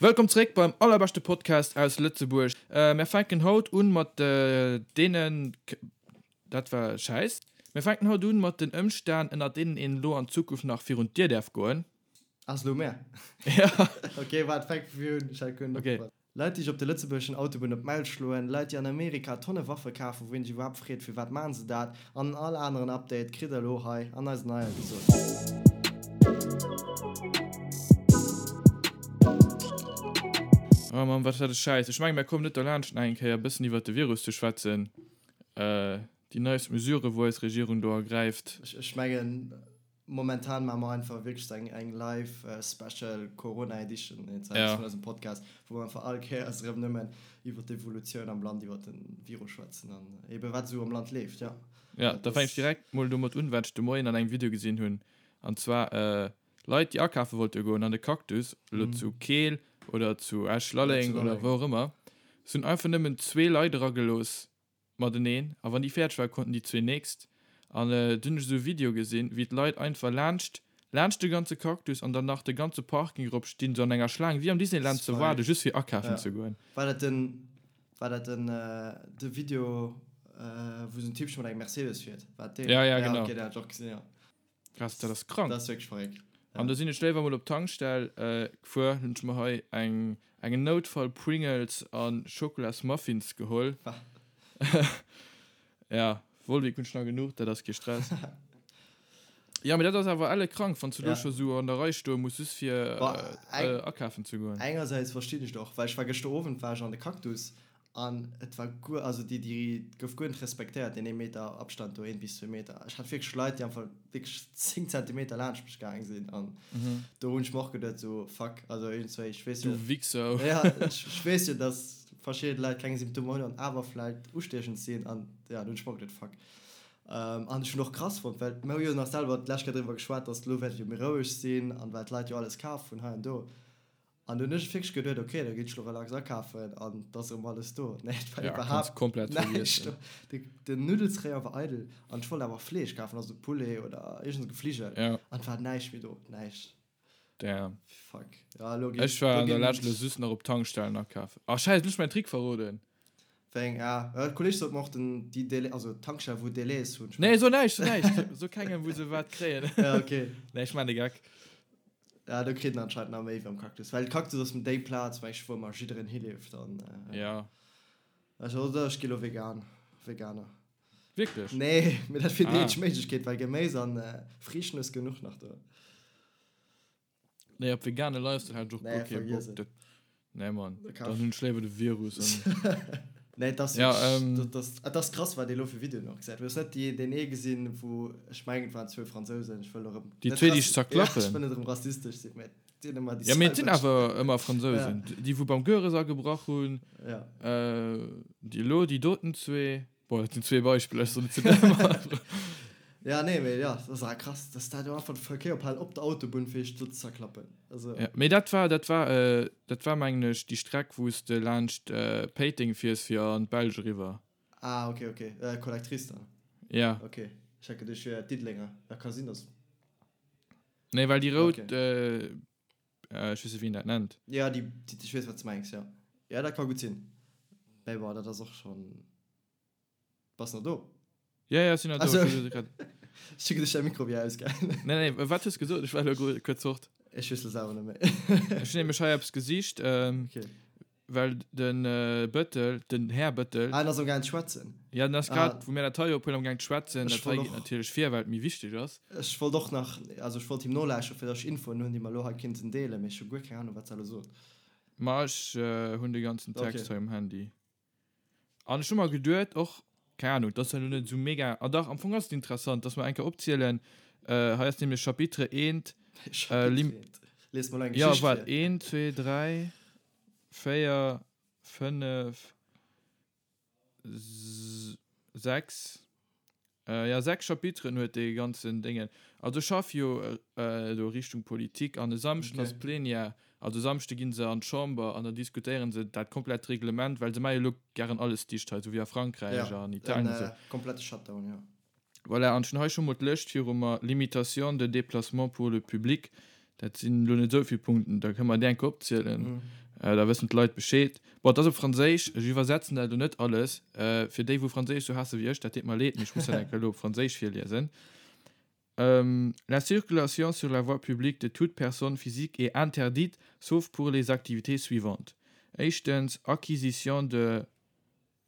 Wëllkomm zréck beim allerbeschte Podcast aus Lëtzebuerg. Mär fänken haut un mat deenen, dat war Schäiss. Mär fänken haut un mat den Ëmstänn ënnert deenen een elo an Zukunft nach virun d'Dier däerf goen. Ass elo mär? Ja. Ok, waart, fänk vu vir un, ech hat guer net opgepasst. Leit déi sech op de lëtzebuergeschen Autobunn op d'Mäul schloen, Leit déi an Amerika Tonne Waffe kafen, wou een sech iwwerhaapt freet firwat maachen se dat, an all aneren Update kritt der elo hei an eiser neier Episode. Oh Mann, wat war de Schäiss. Ech mengen, mir kommen net derlaanscht nach eng Kéier e bëssen iwwert de Virus ze schwätzen, déi neist Mesuren, wou eis Regierung do ergräift. Ech mengen, Momentan maache mer einfach wierklech eng eng live special Corona Edition ja. vun eisem Podcast, wou mer einfach all Kéiers erëm nëmmen iwwer d'Evolutioun am Land, iwwer de Virus schwätzen an ebe wat esou am Land leeft, ja. Ja, da fänke ech direkt mol domat un, wat ech de Moien an engem Video gesinn hunn. An zwar Leit, déi akafe wollte goen an de Cactus, elo zu Keel oder zu Esch-Lalleng oder wou och ëmmer, se hunn einfach nëmmen zwee Leit eragelooss mateneen a wann déi fäerdeg war konnten déi zwee nächst an dunn hunn ech esou e Video gesinn wéi d'Leit einfach laanscht laanscht de ganze Cactus an dann nach de ganze Parking erop stinn sou an enger Schlaang wéi am Disneyland ze waarden just fir akafen ze goen. War dat den war dat den de Video wou esou en Typchen mat engem Mercedes fiert? War dat deen? Ja ja genau. Ok deen hat ech och gesinn jo. Krass, dat ass krank. Dat ass wierklech verréckt. An do sinn ech léiwer mol op d'Tankstell gefuer, hunn ech mer hei eng eng Noutfall Pringles a Schokolas Muffins geholl. Ja, Volvic hunn ech nach genuch, dat ass kee Stress. Jo, mee dat ass awer elle krank, wann s du do scho sou an der Rei stoe muss, just fir akafen ze goen. Engersäits verstinn ech et och, well ech war gëschter Owend war ech an de Cactus An et war guer, also déi, déi gouf guer net respektéiert, deen ee Meter Abstand do, een bis zwee Meter. Ech hat wierklech Leit, déi einfach wierklech 10 Zentimeter laanscht mech gaang sinn an do hunn ech mer och geduet sou, fuck, also iergendzwéi, ech weess jo. Du Wichser. Ja, ech, ech weess jo, dass verschidde Leit keng Symptomer hunn an awer vläicht ustiechend sinn an ja, do hunn ech mer och geduet, fuck. An ech hunn och krass fonnt, well mir hu jo nach selwer d'lescht Kéier driwwer geschwat, dass elo wäert et jo méi roueg sinn an well d'Leit jo alles kaf hunn hei an do. An dunn hunn ech wierklech geduet, ok, da ginn ech lo relax akafen an et ass erëm alles do. Nee, et war Ja, kanns iwwerhaapt komplett näischt vergiessen. do. De, den Nuddelsrayon war eidel an ech wollt awer Fleesch kafen, also Poulet oder iergend esou Gefligel. Ja. An et war näischt méi do, näischt. Damn. Fuck. Ja, elo ginn, Ech war elo an der ginn Lescht lo just nach op Tankstellen akafen. Ah, scheiss, elo hunn ech mäin Trick verroden. Wéi eng? Ah, e Kolleg sot mer och, den, déi Délai, also d'Tankstell, wou Délais hunn. Nee, so näischt, so näischt. So kengem, wou se wat kréien. Ja, ok. Nee, ech maan de Geck. Ja, do kritt en anscheinend nach méi wéi am Cactus. Well Cactus ass déi Plaz, meng ech, wou ëmmer jiddereen hileeft an. Ja. Also, oder ech gi lo vegan, Veganer. Wierklech? Nee, mee dat wier déi eenzeg Méiglechkeet, well Geméis an Friichten hues genuch nach do. Nee, op vegane Lifestyle hat ech och guer kee Bock. Dat, nee Mann, dann hunn ech léiwer de Virus an. Nee, et ass wierklech, dat ass, et ass krass, wat ee lo fir Videoen och gesäit. Du hues net déi, deen ee gesinn, wou, ech mengen, et waren zwou Fransousen, ech wëll erëm Déi zwee, déi sech zerklappen? Ja, ech wëll net erëm rassistesch sinn, mä et sinn ëmmer déi selwecht. Ja, mee et sinn awer ëmmer Fransousen. Déi, wou beim Goeres agebrach hunn, déi elo, déi doten zwee. Bon, dat sinn zwee Beispiller, ech soen net zu dem. Ja, nee, mee ja, dat ass awer krass, dass dat jo einfach de Verkéier ophalen op der Autobunn, fir sech do ze zerklappen. Also. Ja, mee dat war, dat war, dat war mengen ech déi Streck, wou s de laanscht Péiteng fiers fir an d'Belsch eriwwer. Ah, okay, okay, Collectrice dann? Ja. Okay, ech hat geduecht, wier Diddelenger. Ja, ka sinn, dass. Nee, well déi rout, ech weess net, wéi een dat nennt. Ja, déi, ech weess, wat s de mengs, ja. Ja, dat ka gutt sinn. Mee bon, dat ass och schonn. Bass nach do? Ja, ja, ech sinn nach do. Ach sou. Ech hu geduecht, däi Mikro wier ausgaangen. Nee, nee, wat hues gesot? Ech war elo kuerz fort. Ech weess lo selwer net méi. Ech hunn nämlech hei eppes gesicht, Okay. well de Bëttel, den Här Bëttel. Ah, en ass amgaangen ze schwätzen. Ja, en ass grad, wou mir dat hei ophuelen, amgaangen ze schwätzen. Dat hei geet natierlech vir, well et méi wichteg ass. Ech wollt och nach, also ech wollt him nolauschteren, fir datt ech Infoen hunn, déi mer elo hei kinnten deelen, mee ech hu guer keng Ahnung, wat se elo sot. Ma ech hunn de ganzen Text hei um Handy. An ech hu mer geduet och, keng Ahnung, dat ass elo net esou mega, ah dach, am Fong ass et interessant, dass mer eng Kéier opzielen, hei ass nämlech Chapitre eent, Chapitre eent, lies mol eng Geschicht vir. Jo, waart, eent, zwee, dräi, véier, fënnef, 6, jo 6 Chapiteren huet dee ganzen Déngen. Also ech schaff jo elo Richtung Politik an e Samschden ass Plenière, also e Samschde ginn se an d'Chamber an da diskutéieren se dat komplett Reglement, well se maache jo elo gären alles dicht hei, esou wéi a Frankräich an Italien an esou. Komplette Shutdown, jo. Voilà, an ech hunn hei scho mol d'Lëscht viru mer, Limitation de déplacement pour le public, dat sinn elo net esou vill Punkten, da kënne mer déi eng Kéier opzielen. Da wëssen d'Leit Bescheed. Bon, et ass op Franséisch, ech iwwersetzen dat elo net alles. Fir déi, wou Franséisch sou haasse wéi ech, dat deet mer leed, mee ech muss dat eng Kéier elo op Franséisch virliesen. La circulation sur la voie publique de toute personne physique est interdite, sauf pour les activités suivantes, éischtens, acquisition de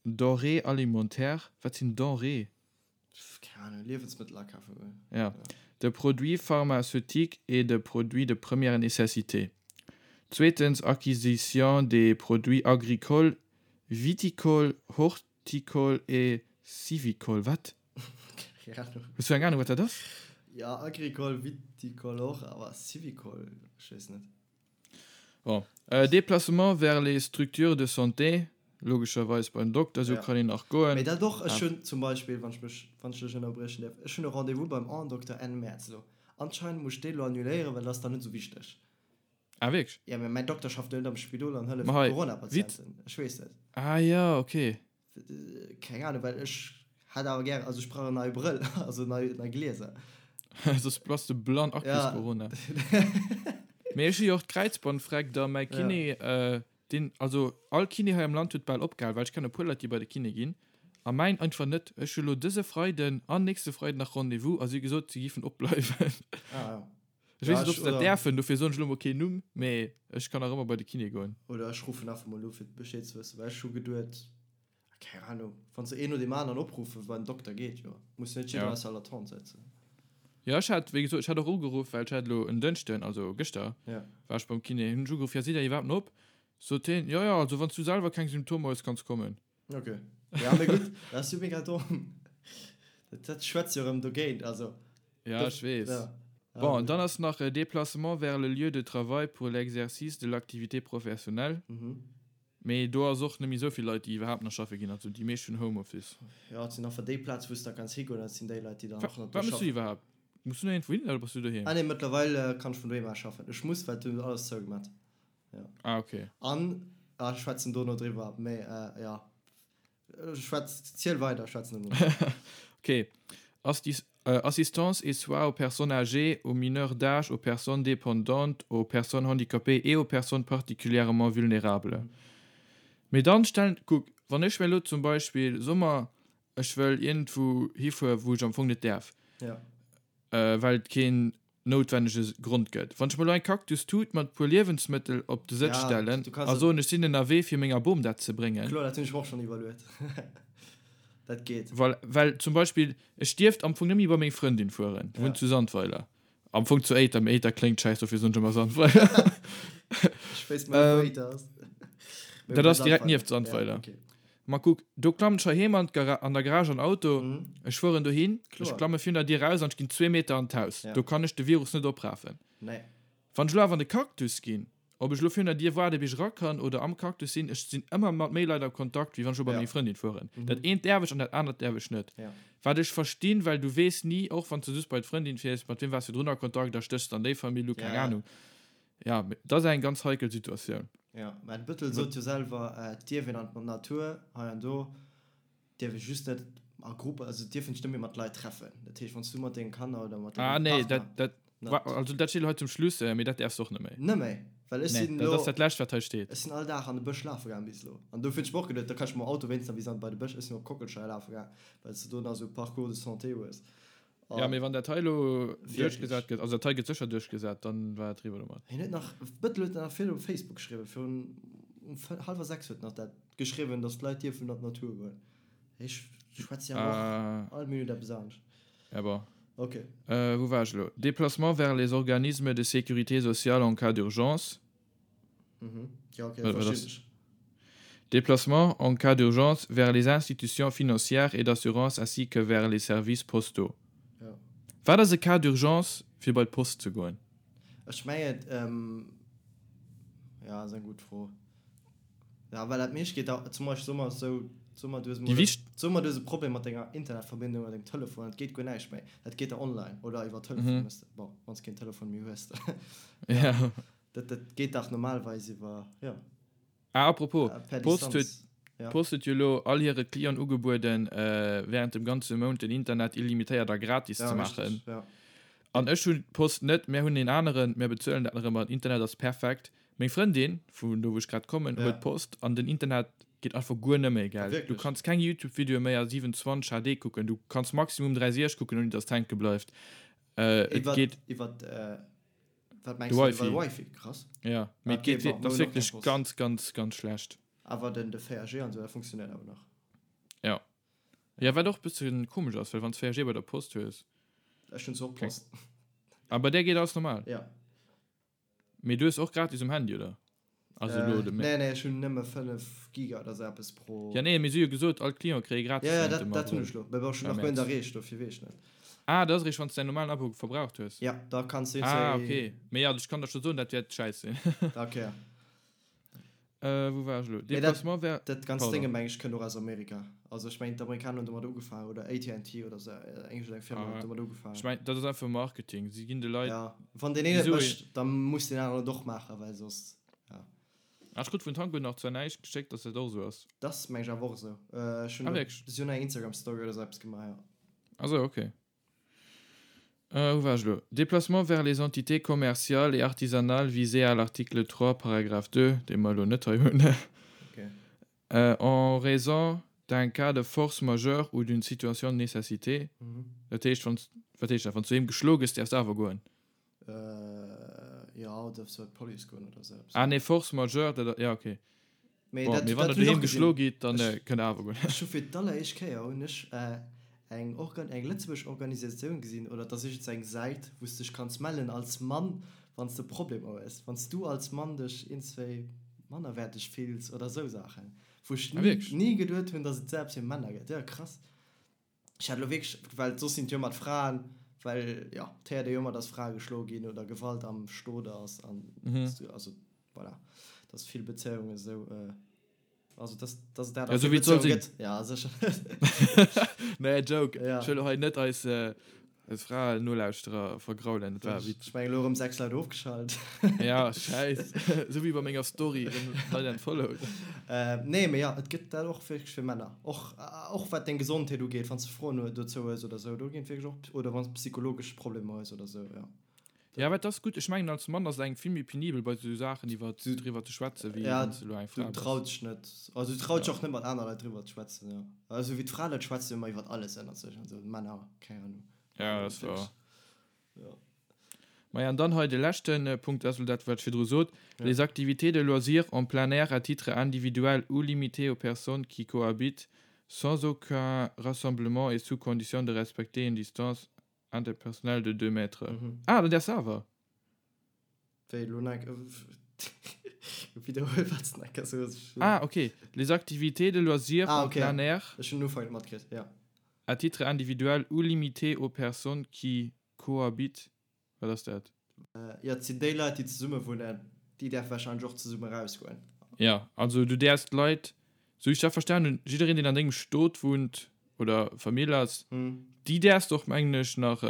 Denrées alimentaires, wat sinn Denrées? Keng Ahnung, Liewensmëttel akafe goen. Ja, de produits pharmaceutiques et de produits de première nécessité. Zweetens, acquisition des produits agricoles, viticoles, horticoles et civicoles. Wat? Keng Ahnung. Hues du eng Ahnung, wat dat ass? Ja, agricole, viticole och, awer civicole, ech weess net. Bon, Déplacement vers les structures de santé, logescherweis beim Dokter, esou kann een nach goen. Mee dat och, ech hunn zum Beispill, wann ech mech, wann ech dech ënnerbriechen däerf, ech hunn e Rendez-vous beim Aendokter Enn Mäerz elo. Anscheinend muss ech dee elo annuléieren, well dat ass dann net esou wichteg. Ah wierklech? Jo, mee mäin Dokter schafft jo net am Spidol an hëlleft Corona-Patienten. Ech weess net. Ah jo, okay. Keng Ahnung, well ech hätt awer gären, also ech brauch en neie Brëll, also nei, nei Glieser. Soss bass de blann a kriss Corona. Mee ech hu jo och d'Kräizbandfreck da, mäi Kiné, deen, also all Kiné hei am Land huet bal opgehal, well ech kennen e puer Leit, déi bei de Kiné ginn, a mäin einfach net. Ech hu lo dëse Freiden an nächste Freiden nach Rendez-vous a si hu gesot, si giffen opbleiwen. Ah ja. Ech weess net, ob se dat däerfen, dofir soen ech elo mol keen Numm, mee ech kann nach ëmmer bei de Kiné goen. Oder ech ruffen einfach mol u fir Bescheed ze wëssen, well ech hu geduet, keng Ahnung, wann se een no deem aneren opruffen, beim Dokter geet jo, muss net jiddereen aus der Latente sëtzen. Jo, ech hat, wéi gesot, ech hat och ugeruff, well ech hat elo en Dënschden, also gëschter, war ech beim Kiné, hunn ech ugeruff, jo, sidd der iwwerhaapt nach op? Sot hien, jo, jo, also wann s du selwer keng Symptomer hues, kanns kommen. Ok. Ja, mee gutt, dat ass jo mega domm. Dat, dat schwätzt jo erëm dogéint, also. Ja, ech weess. Ja. Bon, an dann ass nach Déplacement vers le lieu de travail pour l'exercice de l'activité professionnelle. Mhm. Mee do ass och net méi esou vill Leit, déi iwwerhaapt nach schaffe ginn. Also déi meescht hunn Homeoffice. Ja, et sinn einfach déi Plaz, wou s de da kanns higoen, dat sinn déi Leit, déi dann och nach do schaffen. Wat méchs du iwwerhaapt? Muss du nach iergendwou hin oder bass du doheem? Ah nee, mëttlerweil kann ech vun doheem aus schaffen. Ech muss, well et hunn alles zougemat. Ja. Ah, okay. An, ah, ech schwätzen dono driwwer, mee äh, ja. Schwätz, ziel weider, ech schwätzen dono. Okay. Astis, äh, Assistance et soins aux personnes âgées, aux mineurs d'âge, aux personnes dépendantes, aux personnes handicapées et aux personnes particulièrement vulnérables. Mee dann stellen, kuck, wann ech mir elo zum Beispill, soe mer, ech wëll iergendwou hifuer, wou ech am Fong net däerf, Ja. äh, well et keen noutwennege Grond gëtt. Wann ech mer elo eng Cactus-Tut mat puer Liewensmëttel op de Sëtz stellen a soen, ech sinn ënnerwee fir menger Bom dat ze bréngen. Kloer, dat hunn ech mer och schonn iwwerluet. Dat geet. Voilà, well zum Beispill, ech dierft am Fong net méi bei meng Frëndin fueren, déi wunnt zu Sandweiler. Am Fong zu Éiter, mee Éiter kléngt schäiss, dofir soen ech ëmmer Sandweiler. Ech wéisst mol net, wou Éiter ass. Dat ass direkt nieft Sandweiler. Ma kuck, do klammen ech heiheem an d'Gara-, an der Garage an Auto, ech fueren dohin, ech klamme virun der Dier raus an ech ginn zwee Meter an d'Haus. Do kann ech de Virus net oprafen. Wann ech elo awer an de Cactus ginn, ob ech elo virun der Dier waarde bis ech era kann oder am Cactus sinn, ech sinn ëmmer mat méi Leit am Kontakt, wéi wann ech elo bei meng Frëndin fueren. Dat eent däerf ech an dat anert däerf ech net. Wat ech verstinn, well du weess ni, och wann s de just bei d'Frëndin fiers, mat wiem waars du virdrun a Kontakt a stéchs dann déi Famill u, keng Anung. Ja, mee dat ass eng ganz heikel Situatioun. Jo, mä de Bëttel sot jo selwer, et dierf een an d'Natur hei an do, dierf ee just net a Gruppen, also et dierf een sech net méi mat Leit treffen. Dat heescht, wann s du mat denge Kanner oder mat dengem Partner. Ah nee, dat, dat, net. Also dat steet elo hei zum Schluss, mee dat däerfs de och net méi. Net méi? Well ech sinn elo. Nee, dat ass dat Lescht, wat hei steet. Ech sinn all Dag an de Bësch lafe gaang bis elo. An dofir hunn ech mer och geduet, da kann ech mam Auto wéinstens nach bis an bei de Bësch. Ech sinn op Kockelscheier lafe gaang, well s de do nach esou Parcours de santé hues. Ja, mee wann dat hei elo duerchgesat gëtt, also dat hei gëtt sécher duerchgesat, dann war et eriwwer domat. Hien huet nach, Bëttel huet nach vill op Facebook geschriwwen, virun um hallwer 6 huet nach dat geschriwwen, datt d'Leit dierfen an d'Natur goen. Ech schwätze jo awer och all Minutt eppes anescht. Ja bon. Ok. Wou war ech elo? Déplacement vers les organismes de sécurité sociale en cas d'urgence. Mhm. Ja, okay, verstinn ech. Déplacement en cas d'urgence vers les institutions financières et d'assurance ainsi que vers les services postaux. Ja. Wat ass e Cas d'urgence fir bei d'Post ze goen? Ech mengen, ähm, ja, ass eng gutt Fro. Ja, well dat meescht geet da, zum Beispill soe mer esou, soe mer du hues emol, soe mer du hues e Problem mat denger Internetverbindung oder dengem Telefon, et geet guer näischt méi, dat geet da online oder iwwer Telefon, bon, wann s keen Telefon méi hues. Ja. Dat, dat geet dach normalerweis iwwer, jo. Ah, apropos, d'Post huet, d'Post huet jo elo all hire Clienten ugebueden, während dem ganze Mount den Internet illimitéiert a gratis ze maachen. Ja, An ech hunn d'Post net, mär hunn een aneren, mär bezuelen dat nach ëmmer, den Internet ass perfekt. Meng Frëndin, vun do wou ech grad kommen, huet Post an den Internet geet einfach guer nëmme, gell. Du kanns keng Youtube-Videoe méi a 720 HD kucken, du kanns maximum 360 kucken ouni dass et hänke bleift. Et geet. Iwwert wat mengs du? Iwwer de Wifi? Krass. Jo, mee et geet, et ass wierklech ganz, ganz, ganz schlecht. Awer den 4G an esou, dat funktionéiert awer nach. Jo. Jo, wat och e bësse komesch ass, well wann s 4G bei der Post hues. Ech hunn zwar och Post. A bei där geet alles normal? Jo. Mee du hues och gratis um Handy, oder? Also elo de. Nee, nee, ech hunn nëmme 5 Giga oder sou eppes pro. Ja, nee, mee si hu jo gesot, all Client kréie gratis. Ja, ja, dat, dat hunn ech lo. Mee bon, ech hunn nach guer net erreecht, dofir weess ech net. Ah, dat ass eréischt, wann s de däin normalen Abo verbraucht hues. Ja, da kanns du. Ah, okay. Mee ja, ech kann der scho soen, dat wäert schäiss sinn. Okay. Äh, wou war ech elo? Déplacement wär. Dat ganzt Dénge meng ech kënnt och aus Amerika. Also ech mengen d'Amerikaner hunn domat ugefaangen oder AT&T oder sou eng eng Firma huet domat ugefaangen. Ech mengen dat ass einfach Marketing. Si ginn de Leit. Ja, wann deen een et mécht, da muss deen aneren et och maachen, well soss, ja. Ah, ech krut vun Tango nach zwar näischt geschéckt, dass dat och esou ass. Dat meng ech awer och esou. Ech hunn Ah, wierklech? Si hunn eng Instagram Story oder sou eppes gemaach, jo. Ah sou, okay. Euh, wou war ech elo? Déplacement vers les entités commerciales et artisanales visées à l'article 3, paragraphe 2, dee mer elo net hei hunn, en raison d'un cas de force majeure ou d'une situation de nécessité. Dat heescht, wann s, wat heescht dat? Wann s du doheem geschloe gëss, däerfs de awer goen? Jo, oder däerfs du bei d'Police goen oder sou eppes. Ah nee, force majeure, dat, ja, okay. Mee dat, Bon, mee wann der doheem geschloe gitt, dann kënnt der awer goen. Ech hu fir d'alleréischt Kéier hunn ech eng Organ, eng lëtzebuergesch Organisatioun gesinn, oder et ass iergends eng Säit, wou s dech kanns mellen als Mann, wann s de Problemer hues, wann s du als Mann dech iergendswéi mannerwäerteg fills oder esou Saachen, wou ech ni, ni geduet hunn, datt et esou eppes fir Männer gëtt. Jo, krass. Ech hat elo wierklech, well soss sinn et jo ëmmer d'Fraen, well jo, et héiert ee jo ëmmer, datt Frae geschloe ginn oder Gewalt am Stot ass an also voilà, datt vill Bezéiungen esou, also datt datt et dat a vill Bezéiunge gëtt. Ja, sécher. Nee, Joke. Ech wëll elo hei net eis Eis Fraen-Nolauschterer vergraulen, dat war e Witz. Ech mengen elo erëm 6 Leit ofgeschalt. Ja, schäiss. Esou wéi bei menger Story, erëm Leit unfollowed. Nee, mee jo, et gëtt dat och wierklech fir Männer. Och, och wat deng Gesondheet ugeet, wann s de Froen dozou hues oder esou, do ginn et wierklech och, oder wann s de psychologesch Problemer hues oder esou, jo. Ja, wat ass gutt, ech mengen als Mann ass et engem vill méi penibel bei esou Saachen iwwer driwwer ze schwätzen, wéi wann s de elo eng Fra bass. Du traus dech net, also du traus dech och net mat aner Leit driwwer ze schwätzen, jo. Also wéi d'Frae schwätzen ëmmer iwwer alles ënnert sech an esou, d'Männer, keng Ahnung. Ja, dat ass wouer. Jo. Maja, an dann hei de leschte Punkt, dat ass elo dat wat ech virdru sot, Les activités de loisirs en plein air à titre individuel ou limitées aux personnes qui cohabitent sans aucun rassemblement et sous condition de respecter une distance Interpersonnel de 2 mètres. Ah, dann däerfs de awer. Wéi elo nach eng Widderhuel wat s de nach eng Kéier soos. Ah, ok. Les activités de loisirs ah, en okay. plein air. Ech hunn den Ufank net matkritt, ja. À titre individuel ou limité aux personnes qui cohabitent. Wat ass dat? Jo, et sinn déi Leit, déi zesumme wunnen, déi däerfe warscheinlech och zesumme erausgoen. Jo, also du däerfs d'Leit, sou wéi ech dat verstan hunn, jiddereen, deen an dengem Stot wunnt oder Famill ass, déi däerfs de och, mengen ech, nach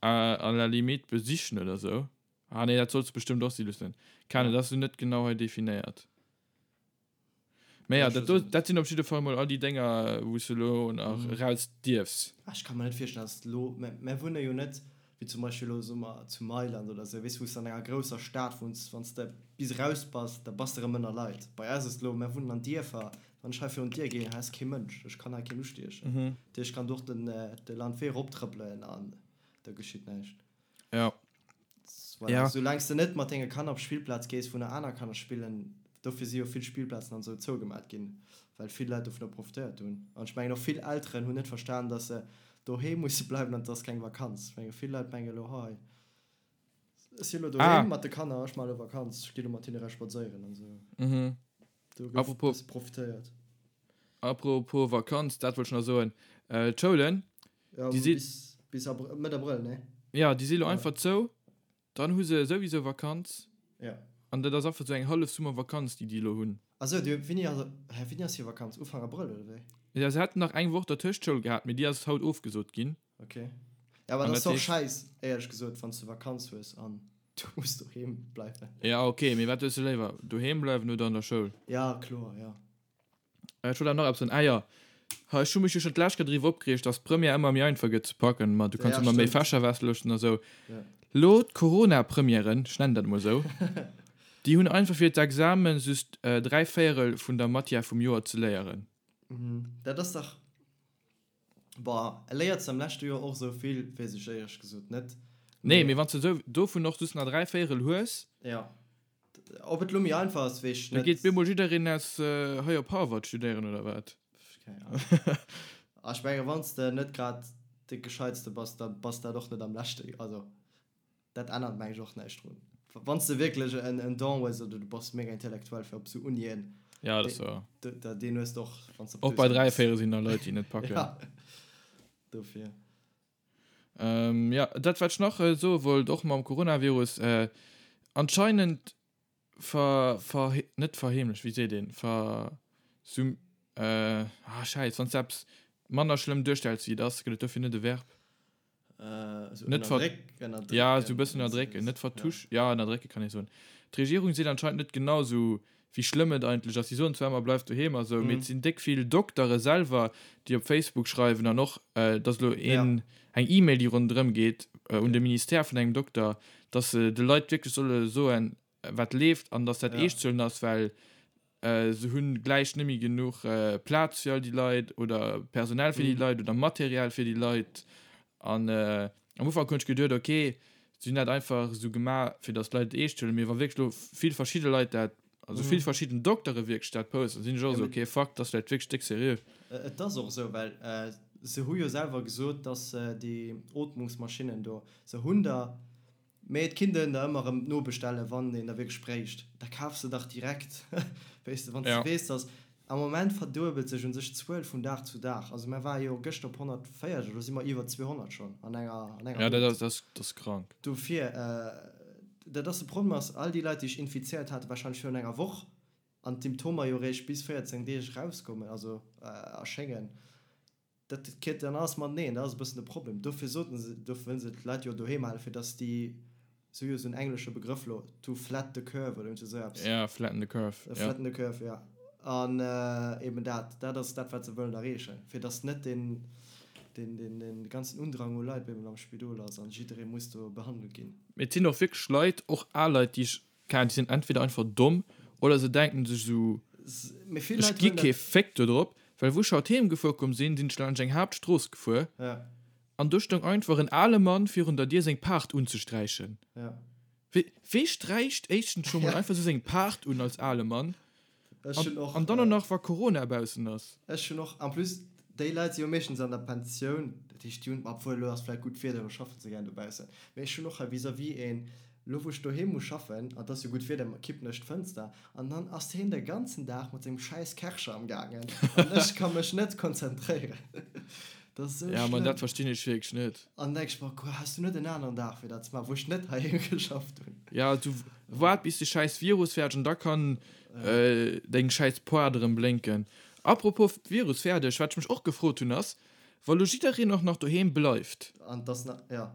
à la limite besichen oder sou. Ah nee, dat solls de bestëmmt och si loossen. Keng Ahnung, dat ass elo net genau hei definéiert. Mä ja, dat do, dat sinn op jidde Fall mol all déi Dénger, wou s de elo nach eraus dierfs. Ah, ech ka mer net virstellen, dass elo, mä mär wunne jo net, wéi zum Beispill elo, soe mer, zu Mailand oder esou, weess, wou s de an enger grousser Stad wunns, wann s de bis eraus bass, da bass de erëm ënner Leit. Bei eis ass et elo, mär wunnen an Dierfer, wann ech hei virun d'Dier ginn, hei ass kee Mënsch, ech kann hei keen ustiechen. Dat heescht, ech kann do och den, de Landwee eroptrëppelen an da geschitt näischt. Ja. Voilà. Ja. Soulaang s de net mat denge Kanner op d'Spillplaz gees, wou nach aner Kanner spillen, dofir si jo vill Spillplazen an esou zougemat ginn, well vill Leit dovunner profitéiert hunn. An ech mengen och vill Elteren hunn net verstan, dass se doheem musse bleiwen an et ass keng Vakanz. Ech menge vill Leit mengen elo, hei, ech si elo doheem mat de Kanner, ech maache elo Vakanz, ech gi elo mat hinne eraus spadséieren an esou. Mhm. Do gouf e Apropos bësse profitéiert. Apropos Vakanz, dat wollt ech nach soen, d'Schoulen, Ja, déi si. bis, bis Abr Mëtt Abrëll, ne? Ja, déi si lo einfach zou, dann hu se souwisou Vakanz. Ja. An dat ass einfach sou eng hallef Summervakanz, déi déi elo hunn. Ah sou, déi, wéini ass, hä, wéini ass hir Vakanz? Ufank Abrëll, oder wéi? Ja, se haten nach eng Woch dertëscht Schoul gehat, mee déi ass haut ofgesot ginn. Ok. Ja, awer An dat ass dat och heescht. schäiss, éierlech gesot, wann s du Vakanz hues an du muss doheem bleiwen. Ja, ok, mee wat hues du léiwer, doheem bleiwen oder an der Schoul? Ja, kloer, ja. Ech wollt awer nach eppes soen. Ah jo, ha ech hu mech jo schonn d'lescht Kéier driwwer opgereegt, dass d'Première ëmmer méi einfach gëtt ze packen, ma du kanns Ja, ëmmer méi stëmmt. Fächer westloossen a sou. Ja. Lo d'Corona-Premièren, ech nennen dat emol esou. Déi hunn einfach fir d'Examen just 3 Véierel vun der Matière vum Joer ze léieren. Dat ass dach, boah, léiert se am leschte Joer och esou vill, weess ech éierlech gesot net. Nee, mee wann s de esou dovun och just nach 3 Véierel hues. Jo, ob et lo méi einfach ass, weess ech net. Da geet bemol jiddereen aus hei op Harvard studéieren, oder wat? Keng Ahnung. A ech menge wann s de net grad de Gescheitste bass, da bass dat och net am leschte, also Dat ännert meng ech och näischt drun. Wann s de wierklech en Don hues oder du bass mega intellektuell fir op esou Unien, Ja, dat ass wouer. deen hues de och, wann s de op Och bei 3 Véiere sinn da Leit, déi net packen. Ja, dofir. Jo, dat wat ech nach soe wollt, och mam Coronavirus, anscheinend ver, ver, net verheemlecht, wéi seet een, ver, sum, ah schäiss, wann s de eppes manner schlëmm duerstells wéi et ass, gëtt et dofir net e Verb? Äh, net ver ja so bëssen ënnerdrécken, net vertusch, ja ënnerdrécke kann ee soen. D'Regierung seet anscheinend net genau sou wéi schlëmm et eigentlech ass. Si soen zwar ëmmer bleift doheem a sou, mee et sinn déck vill Doktere selwer, déi op Facebook schreiwen an och et ass elo een eng E-Mail déi ronderëm geet un de Ministère vun engem Dokter, datt se de Leit wierklech solle soen wat leeft an datt dat eescht ze huelen ass, well Se hunn gläich net méi genuch Plaz fir all déi Leit oder Personal fir déi Leit oder Material fir déi Leit. An am Ufank hunn ech geduet, ok, si hunn dat einfach esou gemaach, fir datt d'Leit et eescht huelen. Mee wa wierklech elo vill verschidde Leit dat, also vill verschidden Doktere wierklech dat posten, sinn ech och esou, ok, fuck, dat ass vläicht wierklech déck seriö. Et ass och esou, well se hu jo selwer gesot, datt déi Ootmungsmaschinnen do, se hunn der Mee et kinnt een der ëmmer erëm nobestellen, wann een der wierklech bréicht. Da kafs de dach direkt, weess de, wann s de weess, dass. Am Moment verduebelt sech un sech d'Zuel vun Dag zu Dag. Also mär ware jo gëschter op 140, elo si mer iwwer 200 schonn an enger, an enger Ja, dat ass, dat ass krank. Dofir, dat ass de Problem ass, all déi Leit, déi sech infizéiert hate warscheinlech virun enger Woch an d'Symptomer jo eréischt bis 14 Deeg erauskommen, also erschéngen, Dat kritt dann alles mateneen, dat ass e bëssen de Problem. Dofir soten se, dofir wëllen se d'Leit jo doheem halen, fir datt déi, se hu jo esou en englesche Begrëff elo, to flat the curve oder iergend esou eppes. Ja, flatten the curve, ja. Flatten the curve, ja. An eben dat, dat ass dat, wat se wëllen erreechen, fir datt net deen, deen, deen, deen ganzen Undrang u Leit bemol am Spidol ass an jidderee muss do behandelt ginn. Mee et sinn och wierklech Leit, och al Leit, déi ech Keine Ahnung, déi sinn entweder einfach domm oder se denken sech esou, ech gi kee Féck do drop, well wou ech haut heem gefuer komm sinn, sinn ech laanscht eng Haaptstrooss gefuer an do stoung einfach en ale Mann virun der Dier seng Paart unzesträichen. Wee sträicht éischtens scho mol einfach esou seng Paart un als ale Mann? An dann och nach wa Corona baussen ass. Ech hunn och, en plus déi Leit si jo meeschtens an der Pensioun, dat heescht déi hunn, obwuel elo ass vläit gutt Wieder, elo schaffen se gären dobaussen, mee ech hunn och hei vis-à-vis een, elo wou ech doheem muss schaffen, an et ass jo gutt Wieder, kippen ech d'Fënster an dann ass heen de ganzen Dag mat sengem schäiss Kärcher am gaangen an ech ka mech net konzentréieren. Dat ass esou schlëmm. Ja, ma dat verstinn ech wierklech net. An denk ech mer, Quoi, has du net en aneren Dag fir dat ze maachen, wou ech net heiheem geschafft hunn? Ja, du waart bis de schäiss Virus fäerdeg an da kann deng schäiss Poart erëm blénken. Apropos Virus fäerdeg, wat ech mech och gefrot hunn ass, wa lo jiddereen och nach doheem bleift. An dass na, ja.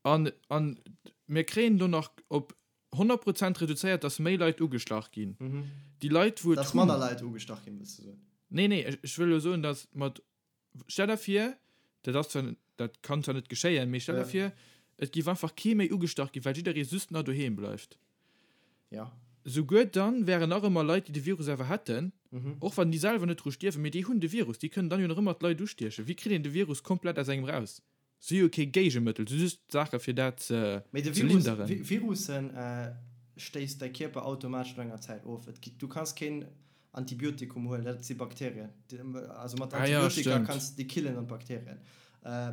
An, an mir kréien do nach op 100 Prozent reduzéiert, dass méi Leit ugestach ginn. Déi Leit wou et Dass manner Leit ugestach ginn, wëlls du soen? Nee, nee, ech wëll elo soen, dass mat Stell der vir, dat ass zwar, dat kann zwar net geschéien, mee stell der vir, et géif einfach kee méi ugestach ginn, well jidderee just nach doheem bleift. Ja. Souguer dann wären nach ëmmer Leit, déi de Virus awer hätten, och wann déi selwer net dru stierwen, mee déi hunn de Virus, déi kënnen dann jo nach ëmmer d'Leit ustiechen. Wéi kritt een de Virus komplett aus engem raus? Si hu jo kee Géigemëttel, si hu just Saache fir dat ze Mee de Virus, linderen. Virussen stéisst däi Kierper automatesch no enger Zäit of. Et gi, du kanns keen Antibiotikum huelen, dat si Bakterien. Also mat Ah ja, Antibiotika stimmt. kanns de déi killen an d'Bakterien.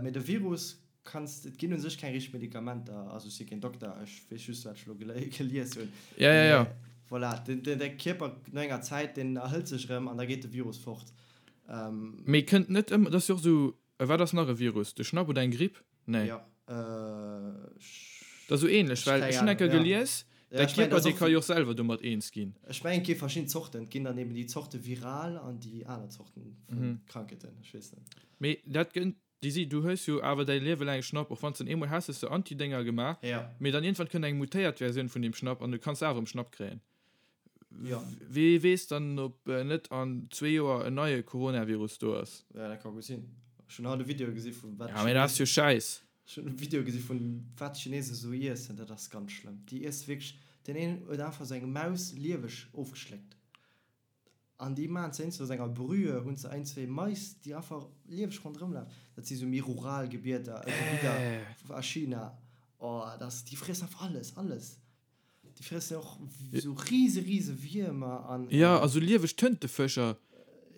Mee de Virus kanns, et ginn u sech keng richteg Medikamenter, also ech si keen Dokter, ech weess just wat ech elo gelies hunn. Ja, ja, ja. Mee voilà, den, den, däi Kierper no enger Zäit, deen erhëlt sech erëm an da geet de Virus fort. Mee kënnt net ëmmer, dat ass jo och esou A wat ass nach e Virus? De Schnapp oder eng Gripp? Nee. Ja, Dat ass esou ähnlech, well ech hunn eng Kéier gelies, däi Kierper, dee ka jo och selwer domat eens ginn. Ech mengen, et gi verschidden Zorten. Et ginn dann eben déi Zorte viral an déi aner Zorten vu Krankheeten. Ech weess net. Mee dat gënnt, déi si, du hues jo awer däi Liewe laang e Schnapp, och wann s den eemol has, hues de Antidénger gemaach, mee dann iergendwann kënnt eng mutéiert Versioun vun deem Schnapp an du kanns awer erëm Schnapp kréien. Ja. Wee weess dann, ob net an zwee Joer en neie Coronavirus do ass. Ja, dat ka gutt sinn. Ech hunn haut e Video gesi vu wat. Ja, mee dat ass jo Schäiss. Ech hunn e Video gesi vun wat d'Chinesen esou iessen. Dat ass ganz schlëmm. Déi iesse wierklech. Deen een huet einfach sou eng Maus lieweg ofgeschléckt. An déi maachen se eenzel aus enger Brühe, hunn se ein, zwee Mais, déi einfach lieweg ronderëm lafen. Dat si sou méi rural Gebieder, Gebidder a China. Oh, dat ass, déi friessen einfach alles, alles. Déi friessen och sou rise, rise Wiermer an. Jo, a sou lieweg Tëntefëscher,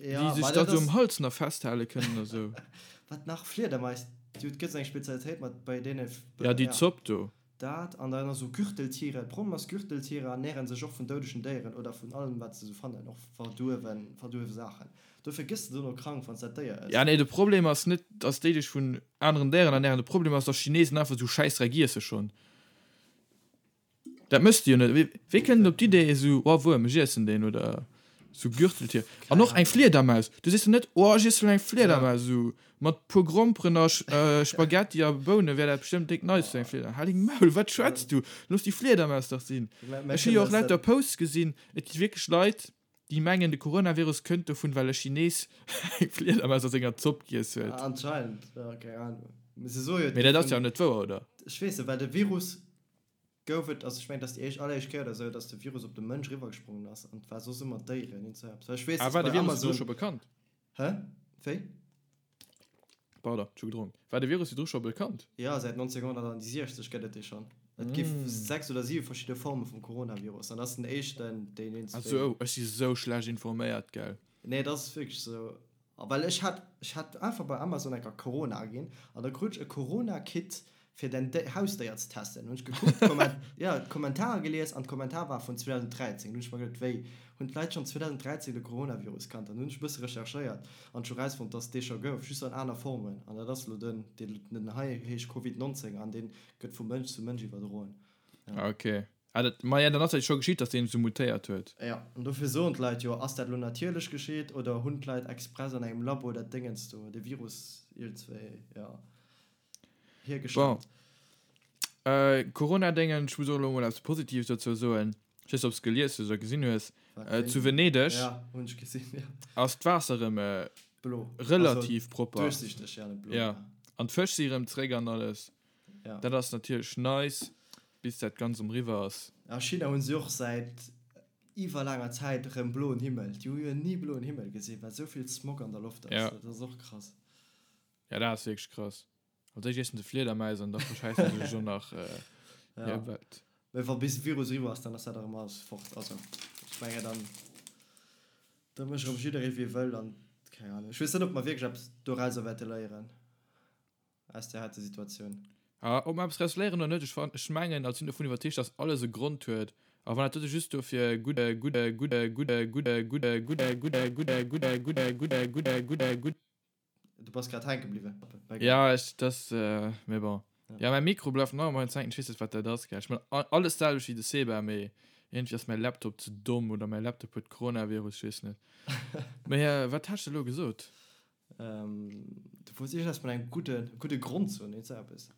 déi sech da sou um Hals nach festhale kënnen a sou. Wat nach? Fliedermais, déi huet, gëtt sou eng Spezialitéit mat bei deene. Ja, déi Zopp do. Dat an dann esou Gürteltiere. Problem ass, Gürteltiere ernären sech och vun doudegen Déieren oder vun allem wat se esou fannen, och verduerwen, verduerwe Saachen. Dofir gëss de dono krank wann s dat Déier ëss. Ja nee, de Problem ass net dass déi dech vun aneren Déieren ernären, de Problem ass dass Chinesen einfach esou Schäissdreck iesse schonn. Dat méchs de jo net. Wéi kënnt en op d'Idee esou, oh Wuerm, ech iessen deen oder esou Gürteltier. An och eng Fliedermaus, du sees jo net, oh ech iessen elo eng Fliedermaus esou Mat puer Gromperen a Spaghetti a Bounen wär dat bestëmmt déck nice fir eng Fliedermaus. Hal deng Maul, wat schwätz du? Looss déi Fliedermaus dach sinn. Ech hu jo och lauter Posts gesinn, et gi wierklech Leit, déi mengen de Coronavirus kënnt dovun, well e Chines eng Fliedermaus a senger Zopp giess huet. Anscheinend, jo, keng Ahnung. Mee se soe jo, Mee dat ass jo net wouer, oder? Ech weess net, well de Virus gouf et, also ech mengen, et ass déi éischt, alleréischt Kéier oder esou, datt de Virus op de Mënsch eriwwergesprongen ass an et war soss ëmmer d'Déieren, iergend esou eppes. Well ech weess, Ah, datt war de bei Virus virdru Amazon. scho bekannt? Hä? Wéi? Pardon, ech hu gedronk. War de Virus virdru scho bekannt? Jo, säit 1960 gëtt et dee schonn. Et gi 6 oder 7 verschidde Forme vum Coronavirus an dat ass den éischten, deen een Ah sou, ech si sou schlecht informéiert, gell? Nee, et ass wierklech sou. A well ech hat, ech hat einfach bei Amazon enker Corona aginn an da krut ech e Corona-Kit fir däin Hausdéier ze testen. Hunn ech gekuckt, d'Komment, jo, d'Kommentarer gelies an d'Kommentar war vun 2013. Hunn ech mer geduet, wéi, hunn d'Leit schonn 2013 de Coronavirus kannt? An hunn ech e bësse recherchéiert an ech hu rausfonnt, dass et dee scho gouf, just an aner Formen. An dat ass elo den, deen, den hei heescht Covid 19 an dee gëtt vu Mënsch zu Mënsch iwwerdroen. Ja. Ok. Ah, dat, ma ja, dann ass dat jo scho geschitt, dass deen esou mutéiert huet. Jo, an dofir soen d'Leit jo, ass dat elo natierlech geschitt oder hunn d'Leit express an engem Labo dat Déngens do, de Virus iergendzwéi, jo. Bon. Äh, Corona-Déngen, ech muss och elo mol eppes Positives dozou soen. Ech weess net, ob s gelies hues oder gesinn hues. Äh, zu Venedeg ja, hunn ech gesinn, ja. ass d'Waasser erëm äh, Blo. relativ also, propper. Duerchsichteg, ja, net blo. Ja. An d'Fësch si erëm zréck an alles. Ja. Dat ass natierlech nice, bis dat Ganzt erëm eriwwer ass. A China hunn se och säit iwwer laanger Zäit erëm bloen Himmel. Déi hu jo ni bloen Himmel gesinn, well esou vill Smog an der Loft ass. Ja. Dat ass och krass. Ja, dat ass wierklech krass. Als éischt iessen se Fliedermäis an da verschäissen se sech och nach Ja. hir Welt. Mee wa bis de Virus eriwwer ass, dann ass dat erëm alles fort. Also ech mengen dann, da mécht erëm jidderee wéi e wëll an keng Ahnung. Ech weess net, ob mer wierklech eppes dorauser wäerte léieren, aus där heite Situatioun. Ah, ob mer eppes draus léieren oder net, ech fan, ech mengen, also sinn dovun iwwerzeegt, dass alles e Grond huet. A wann dat dote just dofir gutt, gutt, gutt, gutt, gutt, gutt, gutt, gutt, gutt, gutt, gutt, gutt, gutt, gutt, gutt, Du bass grad hänke bliwwen. Ja, ech, das, mee bon. Ja, mäi Mikro bleift nach ëmmer hänken, ech weess net, wat dat ass, gell. Ech man alles d'selwecht wéi de Seba, mee iergendwéi ass mäi Laptop ze domm oder mäi Laptop huet Coronavirus, ech weess net. Mee wat hat ech elo gesot? Du wollts iergendeppes mat engem gudde, gudde Grond soen, iergend sou eppes.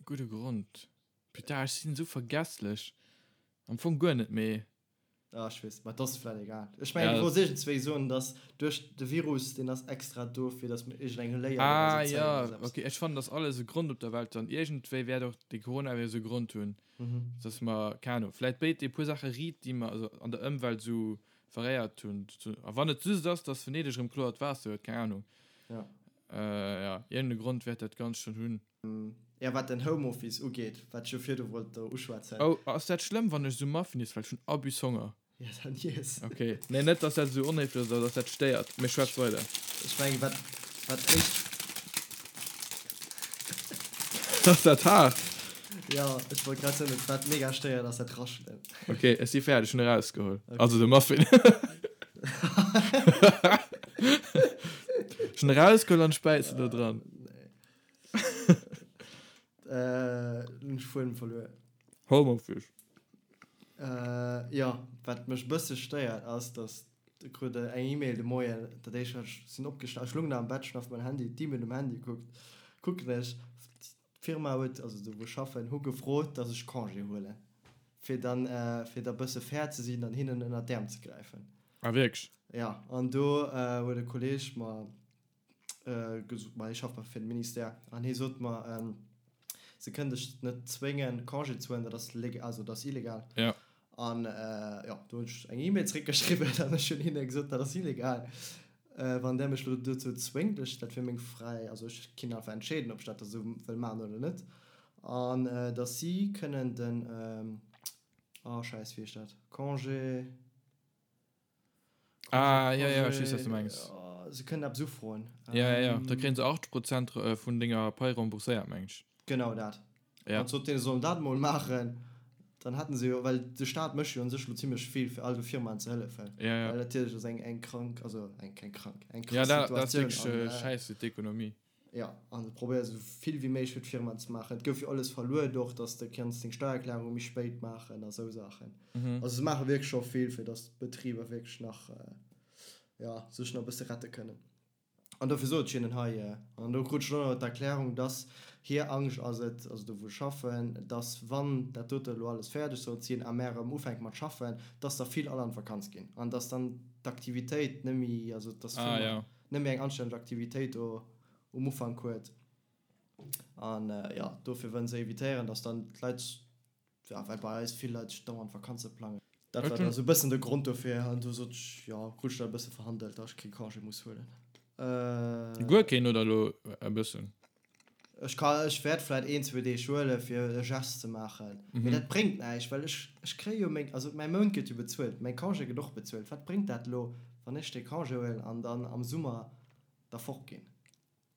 Gudde Grond? Putain, ech sinn esou vergesslech. Am Fong guer net, mee. Ah, ech weess, ma et ass vläit egal. Ech mengen, du wolls iergendzwéi soen, dass duerch de Virus, deen ass extra do, fir dass mir iergendeng Léier Ah, doraus zéien jo, oder sou eppes. okay. Ech fannen, dass alles e Grond op der Welt huet an iergendwéi wäert och de Coronavirus e Grond hunn, dass mer, keng Ahnung, vläit béid e puer Saache riit, déi mer also an der Ëmwelt esou veréiert hunn. A wann et just ass, dass Venedeg erëm kloert Waasser huet, keng Ahnung. Ja. Jo, iergende Grond wäert dat Ganzt schonn hunn. Ja, wat den Homeoffice ugeet, wat ech jo virdu wollt do uschwätzen. Oh, ass dat schlëmm, wann ech esou Muffin iess, well ech hunn Abus Honger. Ja, dann iess. Ok, nee, net dass dat esou onhéiflech ass oder dass dat stéiert, mee schwätz weider. Ech mengen, wat, wat ech. Ass dat haart? Jo, ech wollt grad soen, wat mega stéiert, ass dat Raschelen. Ok, ech si fäerdeg, ech hunn erausgeholl. Also de Muffin. Ech hunn erausgeholl an ech bäissen do dran. Äh, hunn ech Fuedem verluer. Homeoffice. Äh, jo, wat mech e bësse stéiert ass, dass ech krut eng E-Mail de Moien, dat éischt wat ech sinn opgesta, ech lung nach am Bett, ech hunn auf mäin Handy, d'E-Mail um Handy gekuckt, kucken ech, d'Firma huet, also do wou ech schaffen, hu gefrot, dass ech Congé huelen, fir dann, fir da bësse fair ze sinn an hinnen ënnert d'Äerm ze gräifen. Ah wierklech? Jo, an do huet e Kolleeg mer gesot, ma hie schafft fir de Ministère, an hie sot mer, Se kënnen dech net zwéngen, Congé ze huelen, dat ass leg-, also dat ass illegal. Ja. An jo, do hunn ech eng E-Mail zréckgeschriwwen an ech hunn hinne gesot, dat ass illegal, wann där mech elo dozou zwéngt. Ech, dat wier meng fräi, also ech kinn einfach entscheeden, ob ech dat da sou wëll maachen oder net. An datt si kënnen den, oh Schäiss, wéi heescht dat, Congé. Ah, ja, ja, ech weess, wat du mengs. Se kënnen eppes ufroen. Ja, ja, ja. Da kréien se 80 Prozent vun denger Pai rembourséiert, meng ech. Genau dat. Ja. An sot deene, se sollen dat emol maachen, dann hätten se jo, well de Staat mécht jo un sech elo zimlech vill, fir all de Firmaen ze hëllefen. Ja, ja. Well natierlech ass eng, eng krank, also eng, keng krank, eng Ja, krass dat, dat ass Situatioun. wierklech An, äh, schäiss fir d'Ekonomie. Jo, an se probéiere sou vill wéi méiglech fir d'Firmaen ze maachen. Et gouf jo alles verluet och, dass de kanns deng Steiererklärung méi spéit maachen a sou Saachen. Also se maache wierklech scho vill, fir dass d'Betriber wierklech nach, jo, sech nach e bësse rette kënnen. An dofir sot ech hinnen hei, an do krut ech och nach d'Erklärung, dass hir Angscht ass et, also do wou ech schaffen, dass wann dat dote elo alles fäerdeg sollt sinn a mär erëm ufänke mat schaffen, dass der vill all an d'Vakanz ginn an dass dann d'Aktivitéit net méi, also dass d'Firma net méi eng anstänneg Aktivitéit do um Ufank huet. An jo, dofir wëllen se evitéieren, dass dann d'Leit, ja, well bei eis vill Leit sech dauernd Vakanze plangen. Dat war da sou e bëssen de Grond dofir. An du sot ech, jo, krut ech dat e bësse verhandelt, dass ech kee Congé muss huelen. Guer keen oder elo e bëssen? Ech ka, ech wäert vläit een, zwou Deeg huelen, fir e Gest ze maachen. Mee dat bréngt näischt, well ech, ech kréie jo meng, also mäi Mount gëtt jo bezuelt, mäi Congé gëtt och bezuelt. Wat bréngt dat elo, wann ech dee Congé huelen an dann am Summer da fortginn?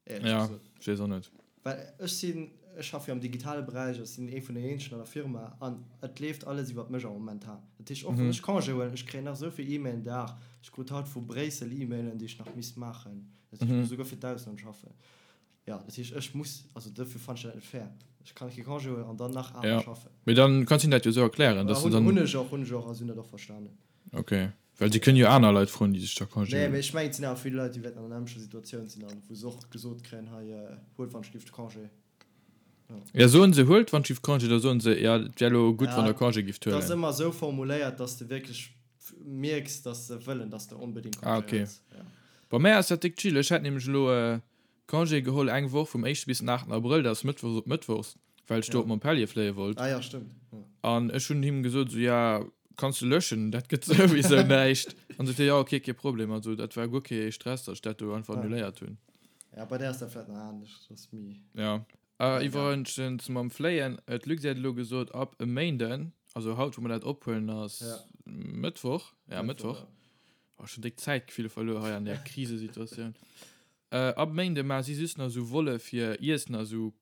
Éierlech Ja, gesot. ech weess och net. Well ech sinn, ech schaffe jo am digitale Beräich, ech sinn ee vun den eenzegen an der Firma an et leeft alles iwwert mech am momentan. Dat heescht, och wann ech Congé huelen, ech kréien nach esou vill E-Mailen Dag. Ech krut haut vu Bréissel E-Mailen, déi ech nach misst maachen. Dat heescht, ech muss esouguer fir d'Ausland schaffen. Jo, dat heescht, ech muss, also dofir fannen ech dat net fair. Ech kann kee Congé huelen an dann nach awer Ja, schaffen. mee dann kanns hinnen dat jo esou erklären, dass du Hunn dann. ech och, hunn ech och a si hunn dat och verstanen. Ok, well si kënnen jo aner Leit froen, déi sech da Congé Nee, huelen. mee ech mengen, et sinn awer vill Leit, déi wäerten an der nämmlechter Situatioun sinn an wou se och gesot kréien, hei, huelt wann ech giff de Congé. Jo. Ja, soen se, huelt wann ech giff Congé, da soen se, ja, et wär elo gutt, wann Ja, der Congé gifft et ass huelen. ëmmer esou formuléiert, dass de wierklech mierks, dass se wëllen, dass de onbedéngt Ah, Congé ok. huels. Ja. Bei mär ass dat déck chill. Ech hat nämlech elo Congé geholl eng Woch vum éischte bis den aachten Abrëll, dat ass mëttwochs op mëttwochs, well ech do Ja. op Montpellier fléie wollt. Ah ja, stëmmt. Ja. An ech hunn him gesot, esou, ja, kanns de löschen, dat gëtt souwisou näischt. An sot hie, ja, ok, kee Problem. Also dat war guer kee Stress, datt ech dat do einfach Ah. annuléiert hunn. Ja, bei där ass dat vläicht nach anescht, dat ass méi. Ja. Ja. Iwwregens mam Fléien, d'Luxair huet elo gesot, ab e Méinden, also haut, wou mer dat ophuelen, ass Ja. Mëttwoch, ja, Mëttwoch, Mëttwoch, ja. oh, schon déck Zäitgefill verluer hei an där Krisesituatioun. Ab Méinde maache si just nach esou Volle fir Iessen a sou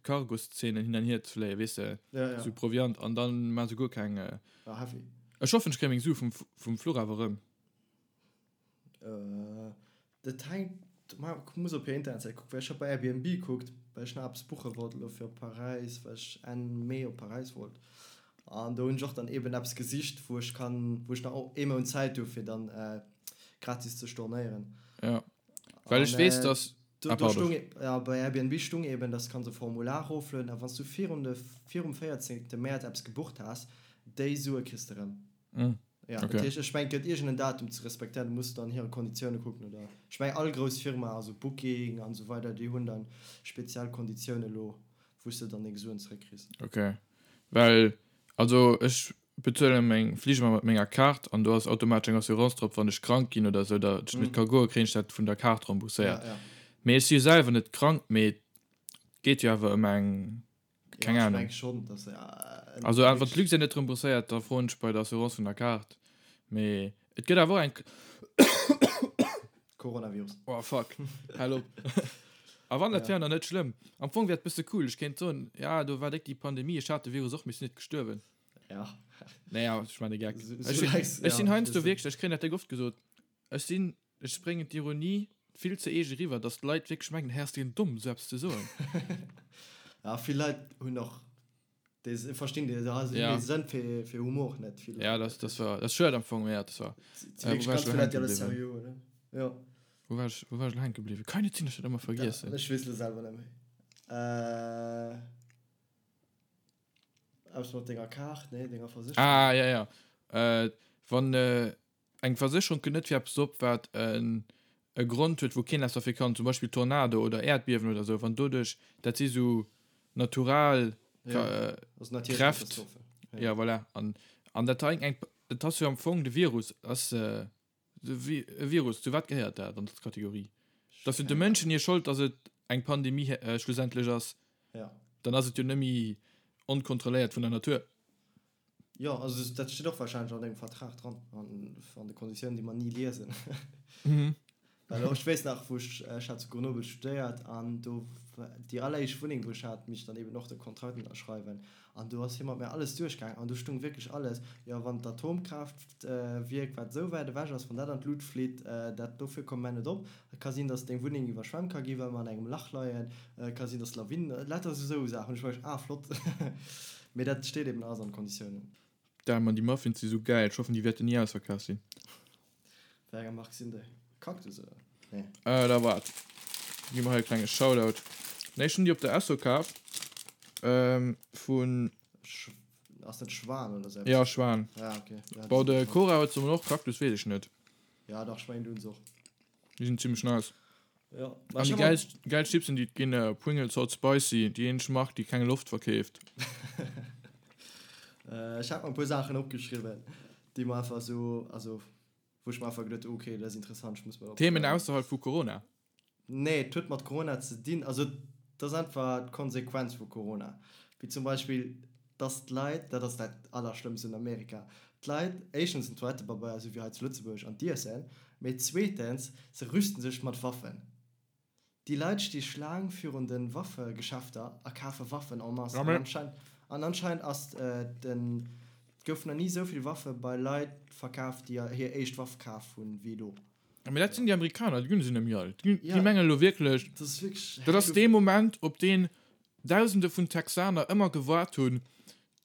Cargoszenen hin an hier ze fléien, weess de, Ja, ja. sou Proviant an dann maache se guer keng. Ah, heavy. Ech hoffen, ech kréie meng Sue vum, vum Fluch awer erëm. Dat hänkt, ma muss op hir Internetsäit kucken, well ech hat bei Airbnb kuckt, well ech nach eppes buche wollt elo fir op Paräis, well ech Enn Mee op Paräis wollt. An do hunn ech och dann eben eppes gesicht, wou ech kann, wou ech nach ee Mount Zäit hu fir dann gratis ze stornéieren. Ja, well ech An weess, dass, do, ah do pardon. stung, ja, bei Airbnb stung eben, dass kanns e Formular eroflueden a wann s du virun de, virum 14. Mäerz eppes gebucht has, déi Sue kriss de rëm. Ja, dat Okay. heescht, ech mengen, et gëtt iergend en Datum ze respektéieren, du muss dann hire Konditioune kucken oder ech mengen all grouss Firma, also Booking an esou weider, déi hunn dann speziell Konditioune lo, wou s de dann deng Suen zeréckkriss. Okay, well also ech bezuele meng Flich ëmmer mat menger Kaart an do ass automatesch eng Assurance drop, wann ech krank ginn oder esou, datt ech net ka goen, kréien ech dat vun der Kaart rembourséiert. Ja, ja. Mee ech si jo selwer net krank, mee et geet jo awer ëm eng, keng Ja, ech Ahnung. meng schonn, datt se en Also wann wierklech. d'Luxair net rembourséiert, da froen ech bei der Assurance vun der Kaart. Mee et gëtt awer och eng. Coronavirus. Oh fuck, hal op. A wann, dat Ja. wär nach net schlëmm. Am Fong wär et bësse cool, ech kéint soen, ja do war déck déi Pandemie, ech hat de Virus och, mee ech sinn net gestuerwen. Ja. Naja, ech man e Geck. So, Ech so sinn, lächs, ech ja, sinn heiansdo wëssen. wierklech, ech kréien dat déck oft gesot, ech sinn, ech bréngen d'Ironie vill ze eege eriwwer, datt d'Leit wierklech mengen, hä ass deen domm, esou eppes ze soen. Ja, vill Leit hunn och dee, verstinn dee, also hunn Ja. dee Sënn fir, fir Humor net, vill Ja, Leit. dat, dat war, dat ass schued am Fong, mee ja, dat war. Si Äh, wou wierklech war ech ganz elo vill Leit, hänke déi alles bliwwen? seriö huelen. Jo. Wou war ech, wou war ech elo hänke bliwwen? Kann net sinn, dass ech dat ëmmer Da, vergiessen. ech weess elo selwer net méi. Äh. Eppes mat denger Kaart, nee, denger Versécherung. Ah, ja, ja. Äh, wann äh, eng Versécherung kënnt net fir eppes op, wat en e Grond huet, wou keen eppes derfir kann, zum Beispill Tornado oder Äerdbiewen oder sou, wann doduerch, dat si sou. Natural ja, also Kräft. Ja. ja voilà. An, an dat hei eng dat ass jo am Fong de Virus ass äh, e Virus, zu wat gehéiert dat an der Kategorie? Dat ass jo de Mënschen hir Schold, datt et eng Pandemie äh, schlussendlech ass. Ja. Dann ass et jo nëmme onkontrolléiert vun der Natur. Jo, also dat steet och wahrscheinlech an dengem Vertrag dran, an, an de Konditiounen, déi mer ni liesen. Mhm. Well och, ech weess nach, wou ech, ech hat zu Grenoble studéiert an do, déi alleréischt Wunneng, wou ech hat, misst ech dann eben och de Kontrakt ënnerschreiwen. An do ass hie mat mir alles duerchgaangen an do stung wierklech alles, jo, wann d'Atomkraaftwierk, wat esou wäit ewech ass, wann dat an d'Lut flitt, dat, dofir komme mer net op. Et ka sinn, dass deng Wunneng iwwerschwemmt ka ginn, well mer an engem Lach leien. Et ka sinn, dass Lawinen, lauter esou Saachen. Ech war wierklech, ah, flott. Mee dat steet eben alles an de Konditiounen. Damn man, déi Muffins si sou gäil. Ech hoffen déi wäerten ni ausverkaf sinn. Wéi enger Mark sinn déi? Cactus oder? Nee. Äh, da waart. Gi mer hei e klenge Shoutout. Nee, ech hunn déi op der Esso kaf. Ähm, vun. Sch ass dat Schwan oder sou eppes? Ja, Schwan. Ja, okay. Ja, Bon, de Cora huet se mol och, Cactus weess ech net. Ja, dach, ech mengen, du hunn se och. Déi sinn zimmlech nice. Ja. An déi gäilst, gäilst Chipsen, déi et ginn, Pringles Hot Spicy, déi eenzeg Mark, déi keng Loft verkeeft. Ech hat mer e puer Saachen opgeschriwwen, déi mer einfach esou, also wou ech mer einfach geduet hu, okay, dat ass interessant, ech muss mer dat Themen opschreiwen. ausserhalb vu Corona? Nee, et huet mat Corona ze dinn, also et ass einfach d'Konsequenz vu Corona. Wéi zum Beispill, dass d'Leit, dat ass dat Allerschlëmmst un Amerika, d'Leit éischtens den Toilettepabeier, esou wéi hei zu Lëtzebuerg, an d'Iessen, mee zweetens, se rüsten sech mat Waffen. Déi Leit sti Schlaang virun de Waffegeschäfter a kafe Waffen en masse. An anscheinend, an anscheinend ass den, et goufen nach ni esou vill Waffe bei Leit verkaf, déi hir éischt Waff kaf hunn, wéi elo. Mee dat sinn déi Amerikaner, déi sinn nëmme all. Déi mengen elo wierklech, dat ass dee Moment, op deen Dausende vun Texaner ëmmer gewaart hunn.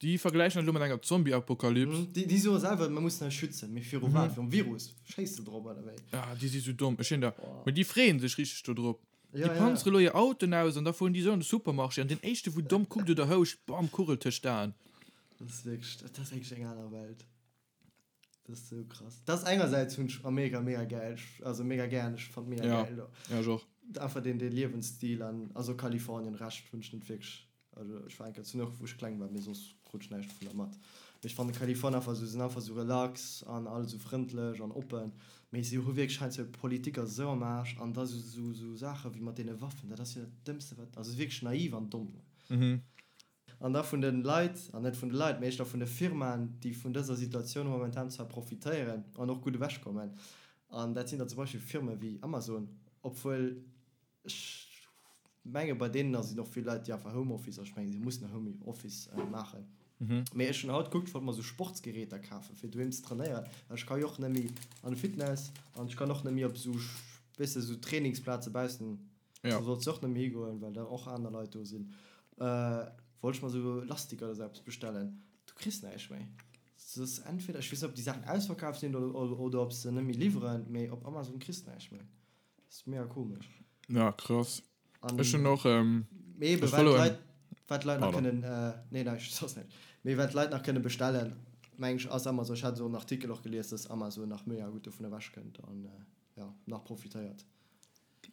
Déi vergläichen dat elo mat enger Zombie-Apokalyps. Déi soe selwer, mir mussen eis schützen. Mee viru wat? Virum Virus? Schéiss de drop, oder wéi? Ah, déi si sou domm. Ech hunn der. Mee déi freeë sech richteg dodrop. Déi panzere elo hir Autoen aus an da fueren déi esou an de Supermarché an deen éischte wou domm kuckt oder houscht, bam, Kugel tëscht d'Aen. Dat ass wierklech, dat ass wierklech eng aner Welt. Dat ass sou krass. Dat ass engersäits hunn ech Amerika mega gäil, also mega gären, ech fannt mega Ja, gäil do. ja ech och. Einfach deen dee Liewensstil an also Kalifornien, Rescht hunn ech net wierklech, also ech war eng Kéier zu New York wou ech kleng war, mee soss krut ech näischt dovunner mat. Mee ech fannen Kalifornien einfach sou, sinn einfach sou relax an all sou frëndlech an oppen, mee si hu wierklech heiansdo Politik ass esou am Aarsch an da sou sou sou Saache wéi mat deene Waffen, dat ass jo dat Dëmmste wat, also wierklech naiv an domm. Mhm. An da vun de Leit, an net vun de Leit, mee éischter vun de Firmaen, déi vun dëser Situatioun momentan zwar profitéieren an och gutt ewechkommen. An dat sinn da zum Beispill Firme wéi Amazon, obwuel ech menge bei deenen sinn och vill Leit, déi einfach Homeoffice, also ech menge si mussen Homeoffice maachen. Mee ech hunn haut gekuckt, ech wollt mer esou Sportsgeräter kafen, fir doheem ze trainéieren, well ech ka jo och net méi an de Fitness an ech kann och net méi op esou, weess de, esou Trainingsplaze baussen. Ja. Do solls de och net méi higoen, well da och aner Leit do sinn. Äh, wollt ech mer sou Lastiker oder sou eppes bestellen. Du kriss näischt méi. S ass entweder, ech weess net, ob déi Saachen ausverkaaft sinn oder, oder, oder ob se net méi liwweren, mee op Amazon kriss de näischt méi. Dat ass mega komesch. Ja, krass. An Ech hunn och, ähm, mee eben, ech wat followen. d'Leit, wat d'Leit nach Pardon. kënnen, äh, nee, näischt, soss näischt. Mee wat d'Leit nach kënne bestellen, meng ech, ass Amazon. Ech hat esou en Artikel och gelies, dass Amazon nach mega gutt dovun ewechkënnt an, äh, ja, nach profitéiert.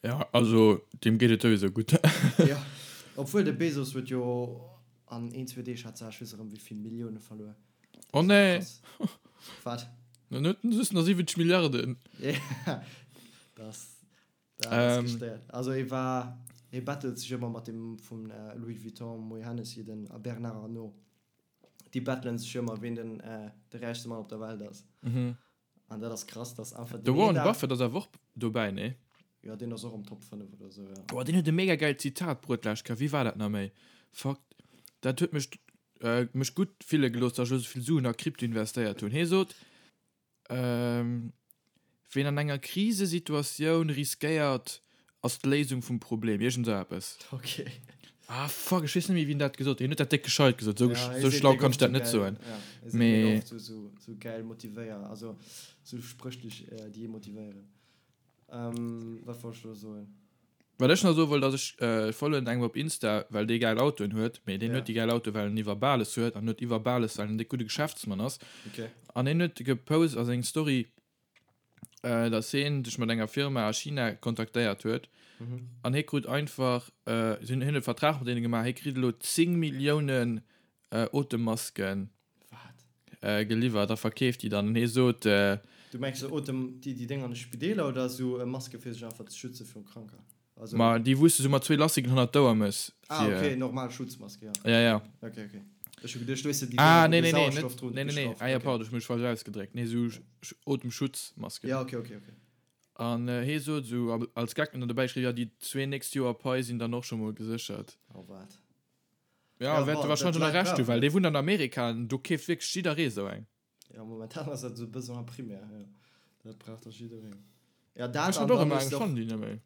Ja, also deem geet et souwisou gutt. Jo, obwuel de Bezos huet jo an een, zwee Deeg hat se, ech weess erëm wéi vill Millioune verluer. Oh nee! Wat? Dann huet en just nach 70 Milliarden. Ja, dat ass, dat ass gestéiert. Also e war, e battelt sech ëmmer mat deem vun Louis Vuitton, Moët Hennessy, den Bernard Arnault. Déi battelen sech ëmmer, ween den de räichste Mann op der Welt ass. An dat ass krass, dass einfach De Warren Buffett ass awer och dobäi, nee? Jo, deen ass och am Top 5 oder sou, jo. Oh, deen huet e mega gäilt Zitat bruet d'lescht Kéier. Wéi war dat nach méi? Fuck, dat huet mech, mech gutt fille gelooss, dass ech elo sou vill Suen a Krypto investéiert hunn. Hie sot, Ween an enger Krisesituatioun riskéiert, ass d'Léisung vum Problem. Iergend esou eppes. Ok. Ah fuck, ech weess net méi wien dat gesot huet. Hien huet dat déck gescheit gesot, esou Ja, hie esou seet schlau déck kann ech oft dat sou net gäil, soen. ja, hie seet mega Mee oft sou, sou, sou gäil motivéier, also sou Spréch déi, déi ee motivéieren. Ähm, wat wollt ech elo soen? Wat ech nach soe wollt ass, ech followen engem op Insta, well dee gäil Autoen huet, mee deen Ja. huet déi gäil Autoe well en iwwer Bales huet an huet iwwer Bales well en déck gudde Geschäftsmann ass. Ok. An hien huet gepost a seng Story. Dass hien sech mat enger Firma a China kontaktéiert huet an hie krut einfach, si hunn e Vertrag mat deene gemaach, hie kritt elo 10 Milliounen Otemmasken geliwwert a verkeeft déi dann. An hie sot. Du mengs esou Otem, déi déngen an de Spideeler oder esou Maske fir sech einfach ze schütze viru Kranker? Also. Ma déi wou s de sou mat zwee Lastiken hannert d'Ouer mëss. Ah ok, normal Schutzmaske, ja. Ja, ja. Ok, ok. Ech hu geduecht, du hues se déi Ah, nee, nee, nee, net, nee, nee, nee. Ah ja, pardon, ech hu mech falsch ausgedréckt. Nee, sou Otemschutzmasken. Ja, ok, ok, ok. An hee sot sou als Gag dann dobäi geschriwwen, ja, déi zwee nächst Joer Pai sinn dann och scho mol geséchert. Oh wat. Ja, wäert e warscheinlech och nach Recht hu, well dee wunnt an Amerika an do keeft wierklech jidderee sou eng. Ja, momentan ass dat esou e Besoin primaire, jo. Dat brauch da jiddereen. Ja, dat Ech an hat och dann ëmmer hues eng, de ech fannen déi net méi.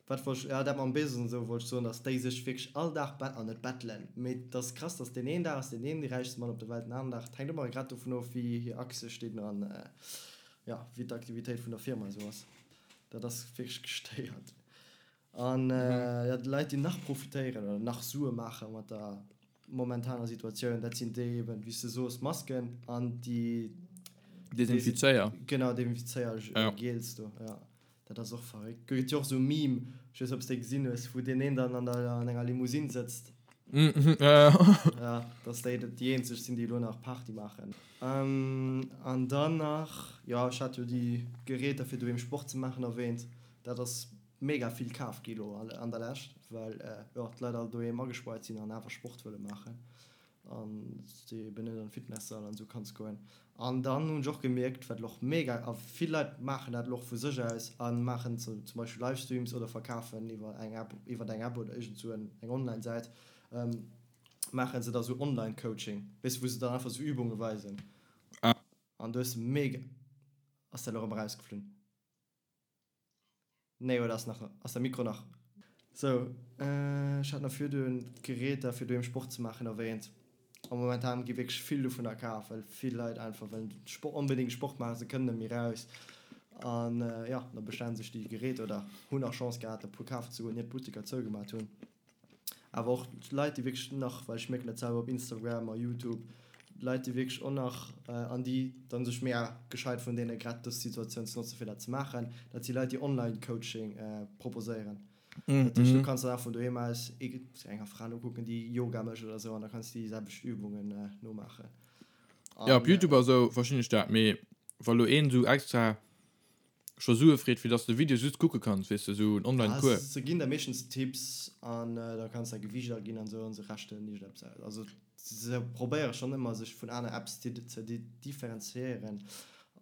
Wat wollt ech, ja, dat mam Bezos an esou wollt ech soen, dass déi sech wierklech all Dag bet, an net bettelen, mee et ass krass, dass deen een Dag ass deen een dee räichste Mann op der Welt, den aneren Dag, et hänkt ëmmer grad dovun of, wéi hir Aktie stinn an, ja, wéi d'Aktivitéit vun der Firma esou ass. Dat ass wierklech gestéiert. An jo, déi Leit, déi nach profitéieren oder nach Sue maache mat der momentaner Situatioun, dat sinn déi eben, wéi s de soos, Masken an déi. Desinfizéier. Genau, Desinfizéier-Gels do, jo. Dat ass och verréckt. Gëtt jo och esou e Meme, ech weess net, ob s de dee gesinn hues, wou deen een dann an der, an enger Limousine sëtzt. Ja, dass déi déi eenzeg sinn, déi elo nach Party maachen. An dann nach, jo, ech hat jo déi Geräter, fir doheem Sport ze maachen, erwähnt. Dat ass mega vill kaf gi lo an der Lescht, well jo d'Leit all doheem agespaart sinn an awer Sport wëlle maachen an s de eben net an Fitnesssall an esou kanns goen. An dann hunn ech och gemierkt, wat elo och mega, a vill Leit maachen dat elo och vu sech aus a maachen zum Beispill Livestreams oder verkafen iwwer eng App, iwwer eng App oder iergend sou eng Online-Säit, maache se da sou Online-Coaching, weess de, wou se dann einfach sou Übunge weisen. An do hues de mega, ass dat elo erëm erausgeflunn? Nee, oder ass nach, ass de Mikro nach? Sou, ech hat nach virdun d'Geräter fir doheem Sport ze maachen erwähnt. A momentan gi wierklech vill dovunner kaf, well vill Leit einfach wëllen Sport, onbedéngt Sport maachen, se kënnen net méi raus. An jo, da bestellen sech déi Geräter oder hunn nach Chance gehat e puer kafen ze goen, ier d'Butteker zougemat hunn. Awer och Leit, déi wierklech nach, well ech mierken dat selwer op Instagram a Youtube, Leit, déi wierklech och nach, an déi dann sech mega gescheit vun deene grad dës Situatioun ze notzen, fir dat ze maachen, dat si Leit, déi Online-Coaching proposéieren. Dat heescht, du kanns dann einfach vun doheem aus enger Fra nokucken, déi Yoga mécht oder esou, an da kanns du déi selwecht Übungen nomaachen. Jo, op Youtube a sou verstinn ech dat, mee wa lo een esou extra scho Sue freet fir dass de Video just kucke kanns, weess de, sou en online Cours. Se ginn der meeschtens Tipps an da kanns däi Gewiicht aginn an sou an se rechnen iergendeppes aus. Also se probéiere schonn ëmmer sech vun aner Apps ze differenziéieren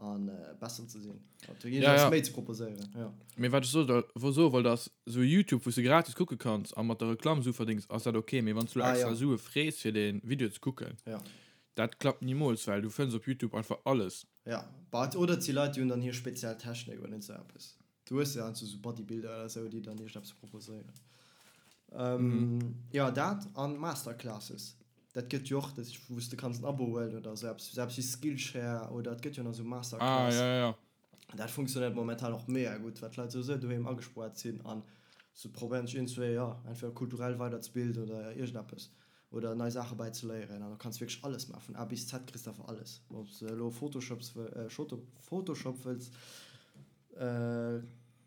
a besser ze sinn, also iergendeppes méi ze proposéieren, jo. Mee wat ech soe soe wollt ass, sou Youtube wou s de gratis kucke kanns a mat der Reklamm Sue verdéngs ass dat ok, mee wann s du extra Sue frees fir dee Video ze kucken, dat klappt nimools, well du fënns op Youtube einfach alles. Ja, but oder et si Leit, déi hunn dann hir speziell Technik oder iergend sou eppes. Du hues jo heiansdo sou Bodybuilder oder sou, déi dann iergendeppes proposéieren. Jo, dat an Masterclasses, dat gëtt jo och, dat wou s de kanns en Abo huelen oder sou eppes, sou eppes wéi Skillshare oder et gëtt jo nach sou Masterclass. Ah, ja, ja, ja. Dat funktionéiert momentan och mega gutt, well d'Leit souwisou doheem agespoart sinn an se probéieren sech iergendzwéi, jo, entweder kulturell weiderzebilden oder iergendeppes. Oder nei Saache bäi ze léieren an do kanns wierklech alles maachen, vun A bis Z kriss de einfach alles, ob s de elo Photoshops Photoshop wëlls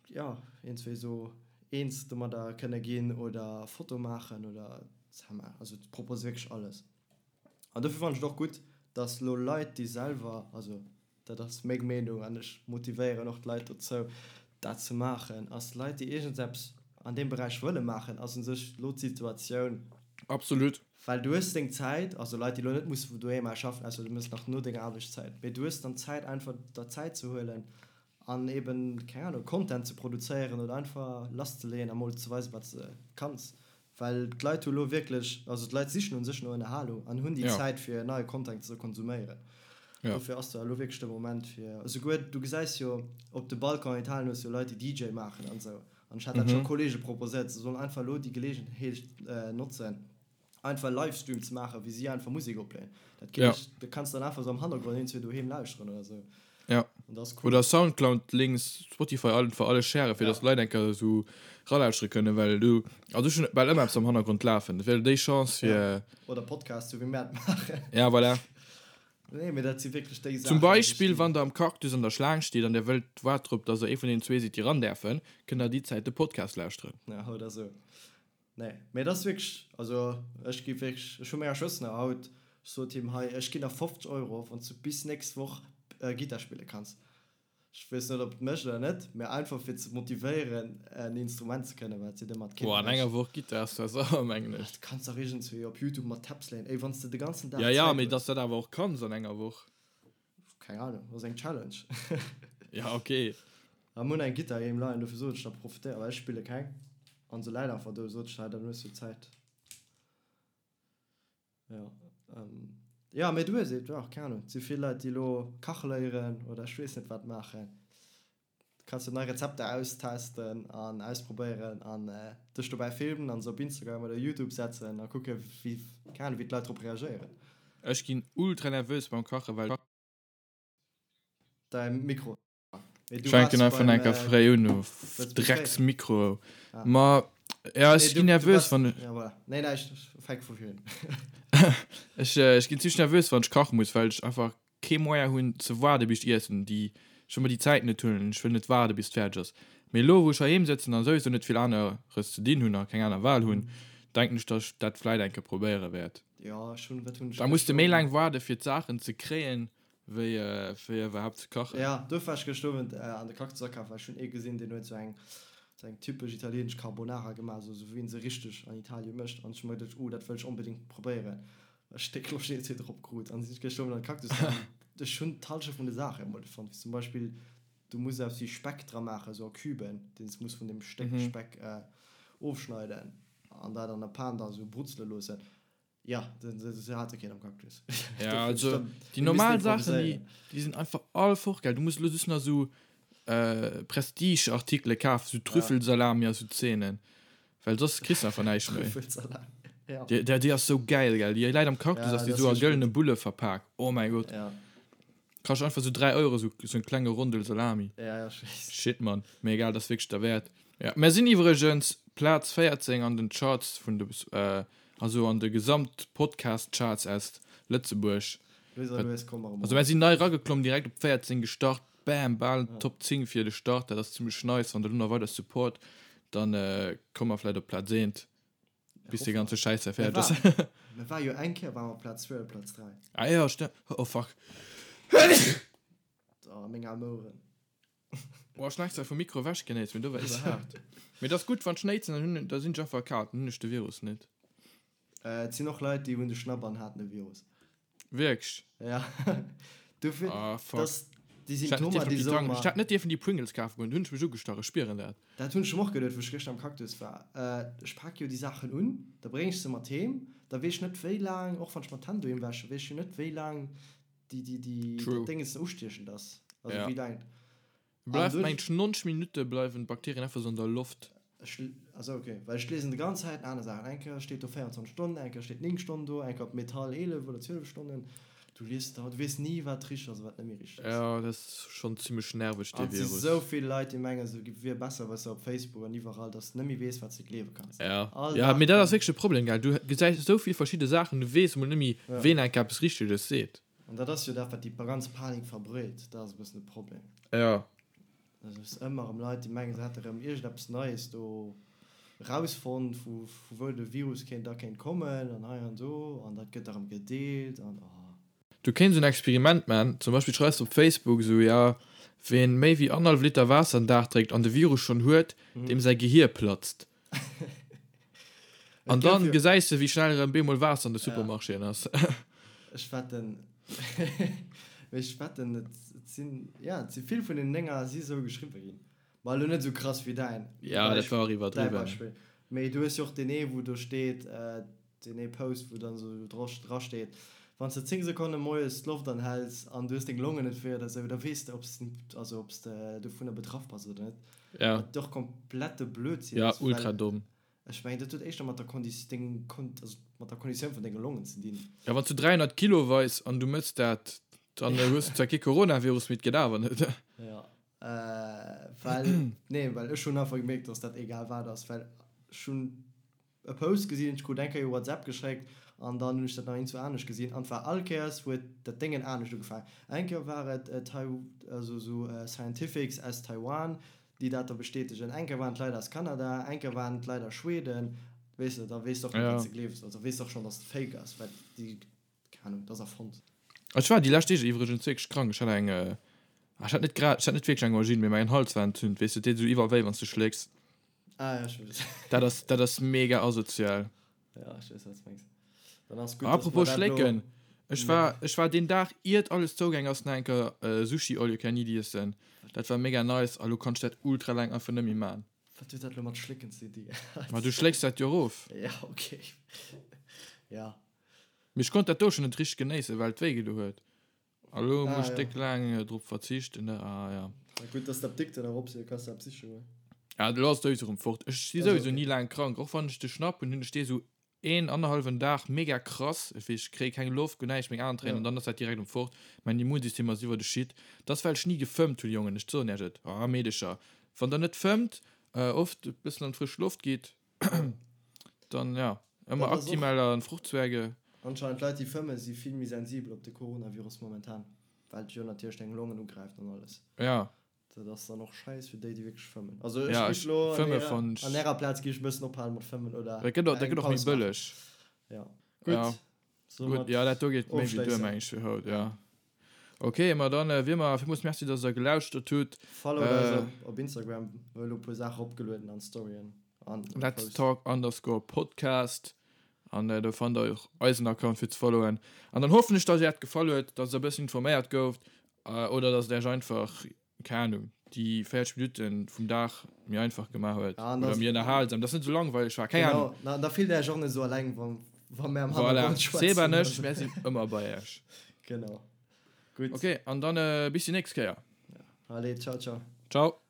jo iergendwéi esou eens domadder kënne ginn oder Foto maachen oder also propose wierklech alles an dofir fannen ech et och gutt, dass elo Leit déi selwer also dat ass meng Meenung an ech motivéieren och d'Leit dozou, dat ze maachen, ass Leit, déi iergendeppes an deem Beräich wëlle maachen, ass u sech elo d'Situatioun. Absolut. Well du hues deng Zäit, also Leit, déi elo net musse vun doheem aus schaffen, ausser du méchs nach no denger Aarbechtszäit, mee du hues dann Zäit einfach der Zäit ze huelen an eben, keng Ahnung, Content ze produzéieren oder einfach lasszeleeën a mol ze weisen, wat s de kanns. Well d'Leit hu lo wierklech, also d'Leit sichen u sech no Ënnerhalung an hunn déi Zäit fir neie Content ze konsuméieren. Dofir ass da elo wierklech de Moment fir, esouguer du gesäis jo op de Balcon an Italien hues jo Leit déi DJ maachen an esou an ech hat dat scho Kollege proposéiert, se sollen einfach elo déi Geleegenheet notzen einfach Livestream ze maachen wéi si einfach Musek opléen. Dat geet, dat kanns de dann einfach esou am Hannergrond iergendzwou doheem lauschteren oder esou. Ja. Oder Soundcloud Links, Spotify einfach alles sharen, fir dass d'Leit eng Kéier esou ralauschtere kënnen, well du, also ech hunn bal ëmmer eppes am Hannergrond lafen, dat wär déi Chance fir. Oder Podcast, sou wéi mär et maachen. Ja, voilà. Nee, mee dat si wierklech déi Saachen. Zum Beispill, wann der am Cactus an der Schlaang steet an der wëllt waart drop, dass der ee vun deenen zwee sidd, déi ran däerfen, kënnt der déi Zäit de Podcast lauschteren. Ja, oder sou. Nee, mee et ass wierklech, also ech gi wierklech, ech hu menger Schwëster nach haut, ech sot him, hei, ech ginn der 50 Euro, wann s du bis nächst Woch Gittar spille kanns. Ech weess net, ob et mécht oder net, mee einfach fir ze motivéieren, en Instrument ze kënnen, wat si de mat Boah, an enger Woch Gittar ass zwar sauer, mengen ech. Du kanns dach iergendswéi op Youtube mat Tabs léieren. Ey, wann s de de ganzen Dag Ja, ja, mee dass dat awer och kanns an enger Woch. Keng Ahnung, ass eng Challenge. Ja, okay. A mir hunn eng Gittar heem leien, dofir sot ech da profitéier, well ech spille keng. An se läit einfach do, sot ech, hei, dann hues du Zäit. Jo, jo, mee du hues et, jo, keng Ahnung, et si vill Leit, déi elo kache léieren oder ech weess net wat maachen. Du kanns jo nei Rezepter austesten an ausprobéieren an dech dobäi filmen an se op Instagram oder Youtube setzen a kucke wéi, keng Ahnung, wéi d'Leit drop reagéieren. Ech ginn ultra nervös beim Kachen, well. Däi Mikro. Ech fänken einfach enker fréi un, du Drecks Mikro. Ma ja, ech ginn nervös wann ech. Nee, näischt, fänk vu vir un. Ech ech ginn zimmlech nervös wann ech kache muss, well ech einfach kee Moyen hunn ze waarde bis ech iessen. Déi, ech wëll mer déi Zäit net huelen, ech wëll net waarde bis et fäerdeg ass. Mee elo wou ech heiheem sëtzen an souwisou net vill aneres ze dinn hunn a keng aner Wahl hunn, denken ech, datt ech dat vläit eng Kéier probéiere wäert. Da muss de méi laang waarde fir d'Saachen ze kréien, Wéi fir iwwerhaapt ze kachen. Ja, duerfir war ech gëscht Owend an de Cactus akafen, well ech hunn ee gesinn, deen huet sou eng, sou eng typesch italienesch Carbonara gemaach, sou wéi een se richteg an Italien mécht. An ech hu mer geduecht, oh, dat wëll ech onbedéngt probéieren. Ech déck Loscht iergendwéi drop krut an sinn ech gëscht Owend an de Cactus gaangen. Ech hunn d'Hallschent vun de Saache emol net fonnt, wéi zum Beispill, du muss eppes wéi Speck dra maachen, sou a Küben, deen s muss vun deem Stéck Speck ofschneiden an dat an der Pan da sou brutzele loossen. Ja, se hate keen am Cactus. Ja, also déi normal Saachen, déi, déi sinn einfach all fort, gell. Du muss elo just nach esou äh, Prestige-Artikele kafen, sou Trüffelsalami a sou Zeenen. Well soss kriss du einfach näischt méi. Trüffelsalami, ja. Déi, déi, déi ass sou gäil, gell. Déi läit am Cactus, ja, ass déi sou a gëllene Bulle verpak. Oh mäi Gott. Ja. Kascht einfach sou 3 Euro, sou, sou en klenge Rondel Salami. Ja, ja, ech weess. Shit, Mann. Mee egal, dat ass wierklech derwäert. Ja, mär sinn iwwregens Plaz 14 an den Charts vun de, also an de Gesamt-Podcast-Charts aus Lëtzebuerg. Lues a lues komme mer erëm Also mär sinn nei erageklomm, direkt op 14 gestart, bam, bal Top 10 fir de Start, dat ass zimmlech nice. Wann der elo nach weider Support, dann komme mer vläit op Plaz 1, bis dee ganze Schäiss hei fäerdeg ass. Mir ware jo eng Kéier ware mer op Plaz 2 oder Plaz 3. Ah jo, stemmt. Oh fuck. Oh, meng aarm Oueren. Boah, ech hun extra vum Mikro ewech genéist, mee do war iwwerhaart. Mee et ass gutt, wann ech néitsen, dann hunn, da sinn ech einfach erkaalt, dann hunn ech de Virus net. Et sinn och Leit, déi hunn de Schnapp an haten e Virus. Wierklech? Ja. Dofir, Ah, fuck. dass déi Ech hätt net Symptomer, dierfen op déi déi soe Tank, mer. ech hätt net dierfen déi Pringles kafe goen, do hunn ech mech ugestach, ech spieren dat. Dat hunn ech mer och geduet, wou ech gëschter am Cactus war. Ech pak jo déi Saachen un, da bréng ech se mat heem, da weess ech net wéi laang, och wann ech mer d'Hänn doheem wäschen, weess ech jo net wéi laang déi déi déi True. dat Dénges ustiechend ass. Also Ja. wéi laang. An Bleift duerch. mengt 90 Minutte bleiwen d'Bakterien einfach sou an der Loft. Ech, also ok, well ech liesen de ganz Zäiten aner Saachen. Eng Kéier steet do 24 Stonnen, eng Kéier steet 9 Stonnen do, eng Kéier op Metall 11 oder 12 Stonnen. Du lies da, du weess ni wat richteg ass a wat net méi richteg ass. Ja, dat ass schonn zimmlech nerveg dee An et si Virus. sou vill Leit déi mengen se wier besser, weess de, op Facebook an iwwerall, dass de net méi weess wat s de gleewe kanns. Ja, All ja, Dag mee dat ass kommen. wierklech e Problem, gell. Du gesäis esou vill verschidde Saachen, du weess emol net méi Ja. ween enk eppes Richteges seet. An dat ass jo dat wat déi ganz Panik verbreet, dat ass e bëssen de Problem. Ja. Dat ass ëmmer erëm Leit déi mengen se hätte erëm iergendeppes Neies do rausfonnt vu vu wou de Virus kéint da kéint kommen an hei an do an dat gëtt da erëm gedeelt an oh. Du kéints en Experiment man, zum Beispill schreifs de op Facebook esou, ja, ween méi wéi annerhallef Liter Waasser den Dag drénkt an de Virus schonn huet, deem säi Gehier platzt. An dann gesäis de wéi schnell erëm beemol Waasser an de Supermarchéen ass. Ech wetten, mee ech wetten et sinn, ja, et si vill vun den Dénger si sou geschriwwe ginn. Ma elo net esou krass wéi däin, Ja, dat war och däi iwwerdriwwen. Beispill. Mee du hues jo och deen ee wou do steet, deen ee Post wou dann esou dra steet, wann s de 10 Sekonne moies d'Loft anhäls an du hues deng Longen net wéi oder esou, da weess de ob s also ob s de dovunner betraff bass oder net. Ja. Wat och komplette Blödsinn Ja, ass, well ultra domm. ech mengen dat huet éischter mat der Kondi deng Kon also mat der Konditioun vun denge Longen ze dinn. Ja, wann s du 300 Kilo weis an du mëss dat, dann hues du zwar kee Coronavirus, mee et geet awer net. Ja. Well, nee, well ech hunn einfach gemierkt, dass dat egal wat ass, well ech hunn e Post gesinn, ech krut eng Kéier WhatsApp geschéckt. An dann hunn ech dat nach iergendwou anescht gesinn. An et war all Kéiers huet dat Déngen anescht ugefaangen. Eng Kéier war et also esou Scientifics aus Taiwan, déi dat da bestätegen. Eng Kéier waren et Leit aus Kanada, eng Kéier waren et Leit aus Schweden. Weess de, da weess de och net, wat s de gleefs. Also weess de och schonn, dass et fake ass, well déi, keng Ahnung, dat ass erfonnt. Ech war déi lescht Deeg iwwregens wierklech krank. Ech hat eng, ech hat net grad, ech hat net wierklech eng Angine, mee mäin Hals war entzünt. Weess de, et deet esou iwwerall wéi, wann s de schlécks. Ah ja, ech weess. Dat ass, dat ass mega asozial. Ja, ech weess, wat s de mengs. Dann ass gutt, dass mer dat Apropos elo. schlécken, ech war, ech war deen Dag, iert alles zougaang ass, nach eng Kéier Sushi all you can eat iessen. Dat war mega nice a lo kann ech dat ultra laang einfach net méi man. Wat huet dat elo mat schlécken ze di? Ma du schlécks dat jo erof. Ja, okay. Ja. Mee ech konnt dat do schon net richteg genéissen, well et wéi gedo huet. A lo Ah, muss ech ja. déck laang drop verzichten, ne? Ah, ja. Ja, gutt, dass d'Apdikt dann erop sinn, kanns de eppes siche goen. Ja, lo ass et souwisou erëm fort. Ech si Also, souwisou okay. ni laang krank. Och wann ech de Schnapp hunn, hunn ech dee sou een, annerhallwen Dag mega krass. Ech weess, ech kréie keng Loft, guer näischt, meng Aen tréinen Ja. an dann ass dat direkt erëm fort. Mäin Immunsystem ass iwwer de Shit. Dat ass, well ech ni gefëmmt hunn, Jongen. Ech soen iech et, ah, Meedecher, wann der net fëmmt, oft e bëssen an d'frësch Loft gitt, Dann ja, ëmmer Dat ass och- Actimel an Fruchtzwerge. Anscheinend Leit déi fëmmen si vill méi sensibel op de Coronavirus momentan, well et jo natierlech deng Longen ugräift an alles. Ja. Dat ass dann och scheiss fir déi déi wierklech fëmmen. Also ech Ja, géif ech lo an fëmme ärer fann ech. an ärer Plaz géif ech e bëssen ophalen mat fëmmen oder Dat gëtt och, dat eng gëtt och méi Paus maachen. bëlleg. Ja. Ja. Gutt. Gutt, ja, dat do geet méi wéi duer, meng ech, fir haut, ja. Ok, ma dann wéi ëmmer, villmools Merci, dass der gelauschtert hutt. Followt eis op op Instagram, mir hu lo e puer Saache eropgelueden an Storyen an Let's Posts. Talk underscore Podcast an do fannt der och eisen Account fir ze followen. An dann hoffen ech, dass iech dat gefall huet, dass der e bëssen informéiert gouft oder dass et iech einfach keng Ahnung, déi 40 Minutten vum Dag méi einfach gemaach huet Ja, an oder das, méi ënnerhalsam, dass net esou langweileg war, keng Ahnung. genau, na, da fillt Är iech och net esou alleng, wa, wa mär am Voilà, Hannergrond Seb an schwätzen. ech, mär sinn ëmmer bei Iech. Genau. Gutt. Ok, an dann bis déi nächst Kéier. Allez, ciao, ciao. Ciao.